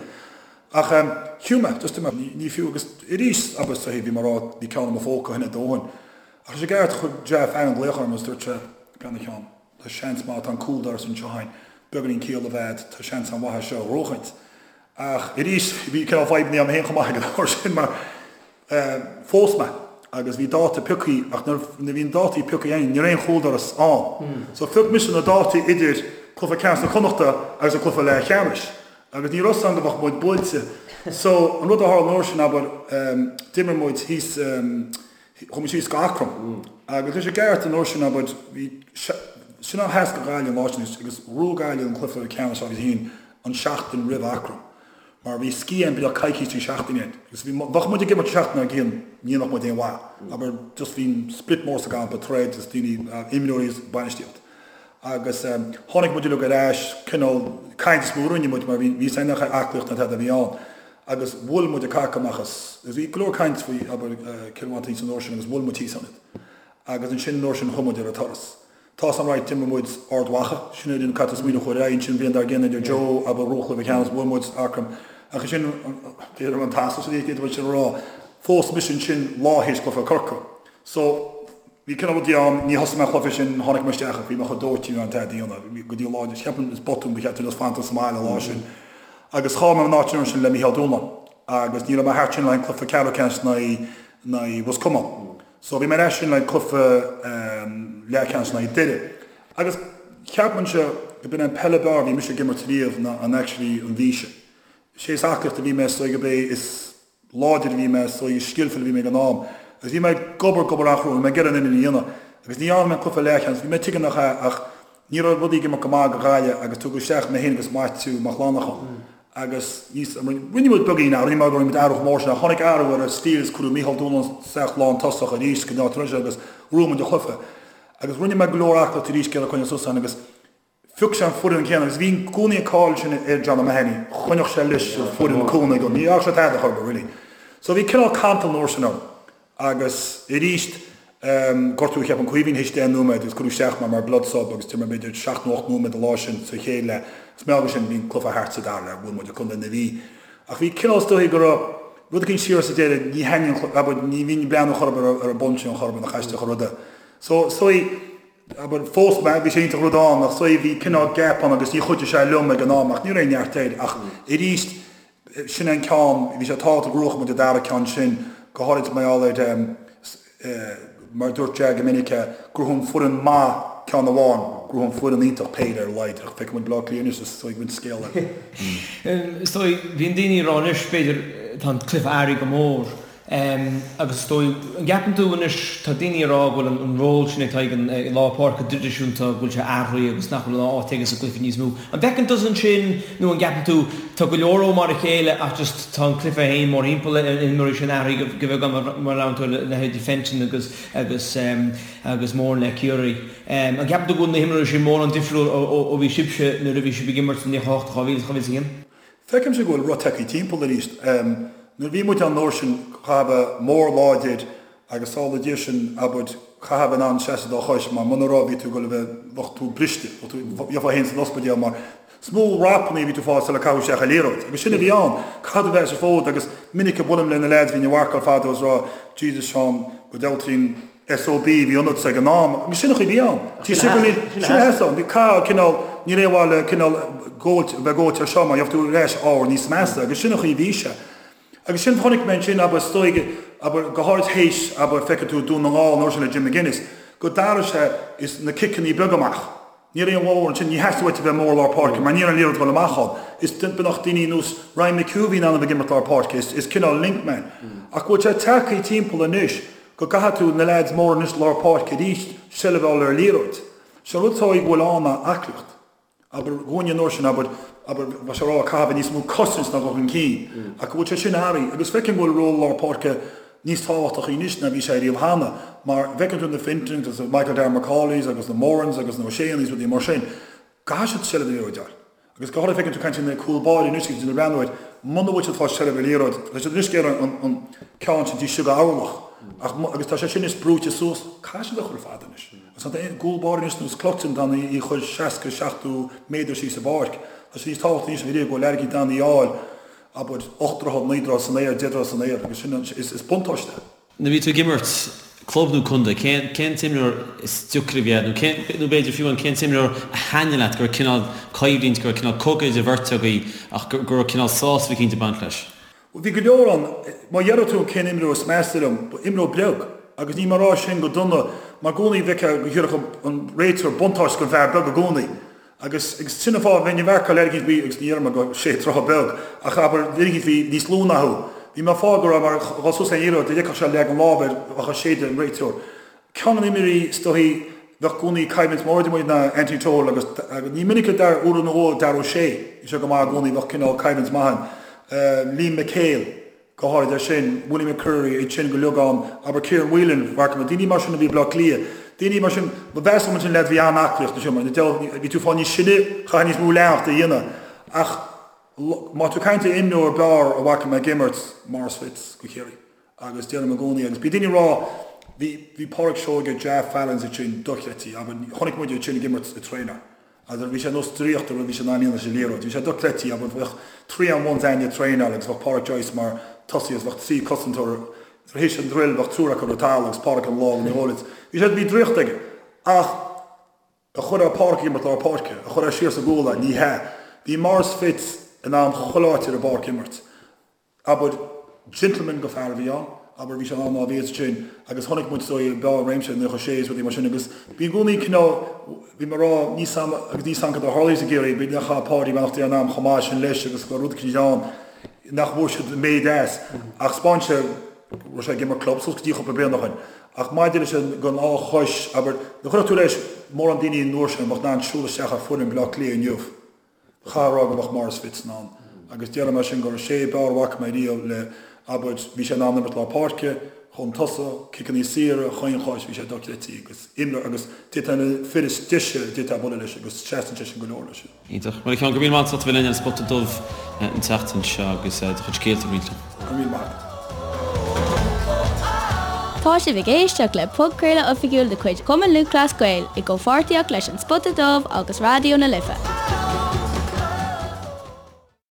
Speaker 3: Ach em, shiúil mé, just mé, ní, ní fiú agus arís, abair sa thaobh, bhí mé ag rá, bhí ceann i mo phóca ó shin a dóthain. Ach leis an gceart, chuir Jeff Allen glaoch orm agus dúirt sé, Breathnaigh a Sheáin, tá seans maith, tá an cúldoras anseo a'inn, beagáinín ciall a bheith a'd, tá seans an-mhaith é seo a ghnóchaint. Ach arís, bhí cineál fadhbanna a'm féin chomh maith ag an uair sin mar, Phós mé agus bhí dáta piocthaí ach nuair a bhí na dátaí piocthaí againn ní raibh aon chúldoras ann. So phioc mise na dátaí idir cluiche ceannais na Connachta agus an cluiche leathcheannais agus ní raibh 's agam go mbeadh muid buailte. So an rud a tharla an uair sin abair d'imir muid thíos chuaigh muid síos go Eachroim agus leis an gceart an uair sin abair bhí sin an sheas go Gaillimh an lá sin agus ghnóthaigh Gaillimh an cluiche ceannais agus haon an seachtain roimh Eachroim. Mar bhí scíth ann beagnach coicís trí seachtaine ann. Agus bhí, bheadh muid ag imirt an seachtain dár gcionn, ní dhéanfadh muid aon mhaith. Abair, just bhí split mór sa gcampa, troid is daoine, imreoirí is bainistíocht. Agus tháinig muid uilig ar ais, cineál caint is mó a rinne muid mar bhí, bhí 's againn nach aclaíocht ná tada a bhí ann. Agus bhuail muid an cac amach as, agus bhí go leor caint faoi, abair, Cill Mhantáin san uair sin agus bhuail muid thíos ann iad. Agus ansin an uair sin chuaigh muid ar an turas. Tá san right, d'imir muid Ard Mhacha, sin an cat is smaoineamh chuir aghaidh ansin bhliain dár gcionn idir Joe agus Ró Chluiche Ceannais, bhuail muid Eachroim. Ach ansin, b'fhéidir an t-asal sin, d'fhéadfadh sin a rá, phós mise ansin lá théis cluiche Corcaigh. So, bhí cineál rudaí ann, ní thosaigh mé an cluiche sin, tháinig mé isteach ach bhí mé chomh dóite ní raibh aon tada a dhéanamh go dtí an lá, cheapaim is botún ba cheart dom just fanacht sa mbaile an lá sin. Agus chaill mé an áit an uair sin le Mícheál Dúnláin agus ní raibh mé thart sin le haghaidh an cluiche ceathrú ceannais in aghaidh Ros Comáin. So bhí mé ar ais sin le haghaidh cluiche leathcheannais in aghaidh Doire. Agus cheapfainnse go b'in an peil ab fhearr a bhí mise ag imirt riamh ná an actually an mhí sin. Sé is aclaíocht a bhí mé is dóigh gurb é is láidir a bhí mé, is dóigh is skillful a bhí mé ag an am. Agus bhí mé ag obair, ag obair an-chrua, bhí mé ag iarraidh an uillinn a dhéanamh. Agus ní dhearna mé an cluiche leathcheannais, bhí mé tuige nach ea ach ní raibh rudaí ag imeacht go maith do Ghaillimh agus tugadh isteach mé féin agus Maitiú Mac Lannacháin. Agus níos, rinne muid beagán athrú, ní mar go rinne muid athrú chomh mór sin ach tháinig athrú ar an stíl is cuireadh Mícheál Dúnláin isteach lán tosach arís go dtí an agus bhuaigh muid an cluiche. Agus rinne mé go leor aclaíocht arís ag iarraidh coinneáil suas ann agus Phioc sé an foireann céanna agus bhí i gcónaí an cáil sin ar John O'Mahony, choinneodh sé leis an foireann i gcónaí, ní dhearna sé tada chor ar bith really. So bhí cineál cantal an uair sin orm agus arís gortú cheapaim Caoimhín théis 10 nóiméad agus cuireadh isteach mé mar blood sub agus d'imir mé b'fhéidir seacht nó ocht nóiméad an lá sin sa chéad leath agus mar gheall air sin bhí an cluiche thart sa dara leath, bhuail muid contae na Mí. Ach bhí cineál is dóigh go raibh rud eicínt siar sa deireadh, ní thaitníonn an cluiche, abair, ní bhínn ag breathnú chor ar bith ar an bpointe an chor ar bith nach aisteach an rud é. So is dóigh Abair, phós mé, bhí sé iontach rud ann, ach is dóigh bhí cineál gap ann agus ní chuidigh sé liom ag an am ach ní raibh aon neart air ach arís sin é an ceann, bhí sé tábhachtach go ngnóthódh muid an dara ceann sin, go háirid mar gheall ar mar a dúirt Jack go minic, gnóthaíonn foireann maith ceann amháin, gnóthaíonn foireann iontach péire ar a laghad ach feicfidh muid Baile Átha Cliath anois is dóigh go bhfuil scéal eile.
Speaker 4: Is dóigh, bíonn daoine ag rá anois, b'fhéidir, tá an cluiche athraithe go mór Agus is dóigh, an gceapann tú anois, tá daoine ag rá go bhfuil an ról sin atá ag an lár páirce traidisiúnta, go bhfuil sé athraithe agus nach bhfuil an áit aige sa gcluiche níos mó. An bhfeiceann tusa ansin nó an gceapann tú, tá go leor ó mar a chéile ach just tá an cluiche féin mórthimpeall ar na himreoirí sin athraithe go beagán mar a labhrann tú ar leithéidí Fenton agus agus agus Moran le Ciarraí. An gceapann tú go bhfuil na himreoirí sin mórán difriúil ó bhí sibhse nuair a bhí sibh ag imirt i 98, 2000, 2001?
Speaker 3: Feicimse go bhfuil rud tagtha timpeall arís. Nuair a bhí muid ann an uair sin, chaithfeá bheith mór láidir agus sála Dia sin, abair, chaithfeá bheith in ann seasamh ar do chois mar muna raibh bhí tú ag dul a bheith, bheadh tú briste, bheadh tú, gheofá féin san ospidéal mar is mó rapanna a bhí tú fáil sula caitheadh isteach an liathróid. Agus sin a bhí ann. Caithfidh tú bheith sa bhfód agus minic a buailim le na leaids a bhí ina mharcáil fadó is rá, Jesus Seán, go dealtraíonn SOB a bhí ionatsa ag an am, agus sin an chaoi a bhí ann. Sin a sheas ann. Bhí cath cineál, ní raibh aon mhaith le cineál góilt, bheith góilte ar seo mar gheobhaidh tú ar ais ábhar níos measa agus sin an chaoi a bhí sé. Agus sin chonaic mé ansin, abair, is dóigh, abair, go háirid théis, abair, feicfidh tú Dún na nGall an uair sin le Jim McGuinness, go d'athraigh sé is na ciceanna beaga amach. Ní raibh aon mhór ansin, ní theastaigh uait a bheith mór lár páirce mar ní raibh an liathróid ag dul amach ann. Is beagnach daoine nós Ryan McHugh a bhí in ann a bheith ag imirt lár páirce, is is cineál link man. Ach go bhfuil sé tagtha timpeall anois go gcaithfidh tú na leaids móra anois lár páirce arís seilbh a fháil ar an liathróid. Sé an rud atá go bhfuil ann ná aclaíocht. Abair dhúinne an uair sin, abair, abair, bheadh sé a rá caithfidh a bheith níos mó cosaint ná dul chun cinn. Ach go bhfuil sé sin athraithe agus feicim go bhfuil ról lár páirce níos tábhachtachaí anois ná bhí sé riamh cheana, mar bhfeiceann tú na Fentons agus na Michael Darragh Macaulays agus na Morans agus na O'Sheas rudaí mar sin, caithfidh siad seilbh ar liathróid a fháil. Agus go háirithe feiceann tú caint na cúl báire anois agus na breathnú air, muna bhfuil siad ag fáil seilbh ar liathróid, tá siad anois ag iarraidh an an ceann sin taobh istigh d'orlach ach agus tá sé sin is brúite suas, caithfidh siad a chur fada anois. Agus tá an cúl báire anois nós Cluxton in ann í a chur 60, 70 méadar síos sa bpáirc. Tá sé níos tábhachtaí anois ná riamh go bhfuil airgead in ann í a fháil. Abair, 8 dtroithe, 9 dtroithe san aer, 10 dtroithe san aer, agus sin, is buntáiste é.
Speaker 2: Nuair a bhí tú ag imirt, club nó contae, cén, cén t-imreoir is deacra a bhí agat, nó cén, nó b'fhéidir fiú amháin cén t-imreoir a thaitnigh leat, go raibh cineál coimhlint, go raibh cineál cogadh idir bheirt agaibh ach go, go raibh cineál sásamh eicínt ag baint leis?
Speaker 3: Bhuel, bhí go leor ann. Má deireadh tú cén imreoir is measa liom, ba imreoir beag, agus níl mé ag rá sin go dona, mar i gcónaí bhfeicfeá go dtabharfadh an réiteoir buntáiste don bhfear beag i gcónaí. Agus agus sin an fáth, bheinn ag marcáil leaid eicínt bhí, agus ní deirim go sé troithe beag, ach abair, duine eicínt bhí níos lú ná thú. Bhí mé ag fáil go raibh mar dhul suas le liathróid, dá bhfeicfeadh sé leag an lámh air, bheadh á séideadh an réiteoir. Ceann de na himreoirí is dóichí bheadh i gcónaí coimhlint mór idir muid ná Anthony Tohill agus agus ní minic a Dar uair nó dhó Darragh O'Shea, bhí sé go maith i gcónaí, bheadh cineál coimhlint maith ann. Liam McHale. Go háirid é sin, Willie McCreery, iad sin go uilig ann, abair Kieran Whelan, mharcáil mé, daoine mar sin a bhí i Bleá Cliath, daoine mar sin, ba mheasa liom ansin leaid a bhí an-aclaíocht ansin mar bhí tú fáil níos sine, chaithfeá níos mó leanacht a dhéanamh ach má tá tú ag caint ar imreoir b'fhearr a bhfaca mé ag imirt, Maurice Fitz go Chiarraí agus deirim i gcónaí agus bhí daoine ag rá bhí bhí Pádraig Seoige, Ja Fallons iad sin dochreidte, abair chonaic muid iad sin ag imirt ag traenáil. Agus bhí sé nós draíochta rud bhí sé in ann a dhéanamh leis an liathróid. Bhí sé dochreidte, abair, bheadh 3 on 1s againne ag traenáil agus bheadh Pádraic Joyce mar tosaí agus bheadh 3 cosantóir. Nuair a théis an druil bheadh triúr acu ar an talamh agus Pádraic ina lámh ina ghoile. Bhí sé, bhí draíocht aige. Ach an gcuirfeá Pádraic ag imirt lár páirce, an gcuirfeá siar sa gcúl é, ní hea. Bhí Maurice Fitz in ann chuile áit ar an bpáirc a imirt. Abair, gentleman go fear a bhí ann, abair, bhí sé in ann á bhíos sin agus chonaic muid is dóigh beo réimse i 96 is rudaí mar sin agus bhí i gcónaí cineál, bhí mé ag rá, níl 's a'm agus níl 's a'm cad a tharlaigh i gCiarraí, b'fhéidir nach raibh Páidí beannacht Dé lena anam chomh maith sin leis agus go raibh rud eicínt ann nach bhfuair siad an méid as ach 'spáin sé go raibh sé ag imirt club suas go dtí chúpla bliain ó shin ach maidir leis an gon á chois, abair, nuair a chuirfeadh tú leis mórán daoine an uair sin a bheadh in ann siúl isteach ar foireann Bhaile Átha Cliath inniu. Chaithfeá a rá go mbeadh Maurice Fitz in ann. Agus déarfaidh mé sin gur sé ab fhearr a bhfaca mé riamh le, abair, bhí sé in ann imirt lár páirce, chun tosaigh, ciceanna saora, chaon chois, bhí sé dochreidte agus imreoir agus d'fhéadfá na fir is deise a d'fhéadfá bualadh leis agus seasann sé sin go leor leis.
Speaker 2: Iontach. Bhuel a Sheáin, go raibh míle maith agat as ucht a bheith linn ar an Spota Dubh an tseachtain seo agus do chuid scéalta a roinnt linn.
Speaker 3: Go raibh míle maith agat.
Speaker 1: Tá sibh ag éisteacht le podchraoladh oifigiúil de chuid Chumann Lúthchleas Gael i gcomhpháirtíocht leis An Spota Dubh agus Raidió na Life.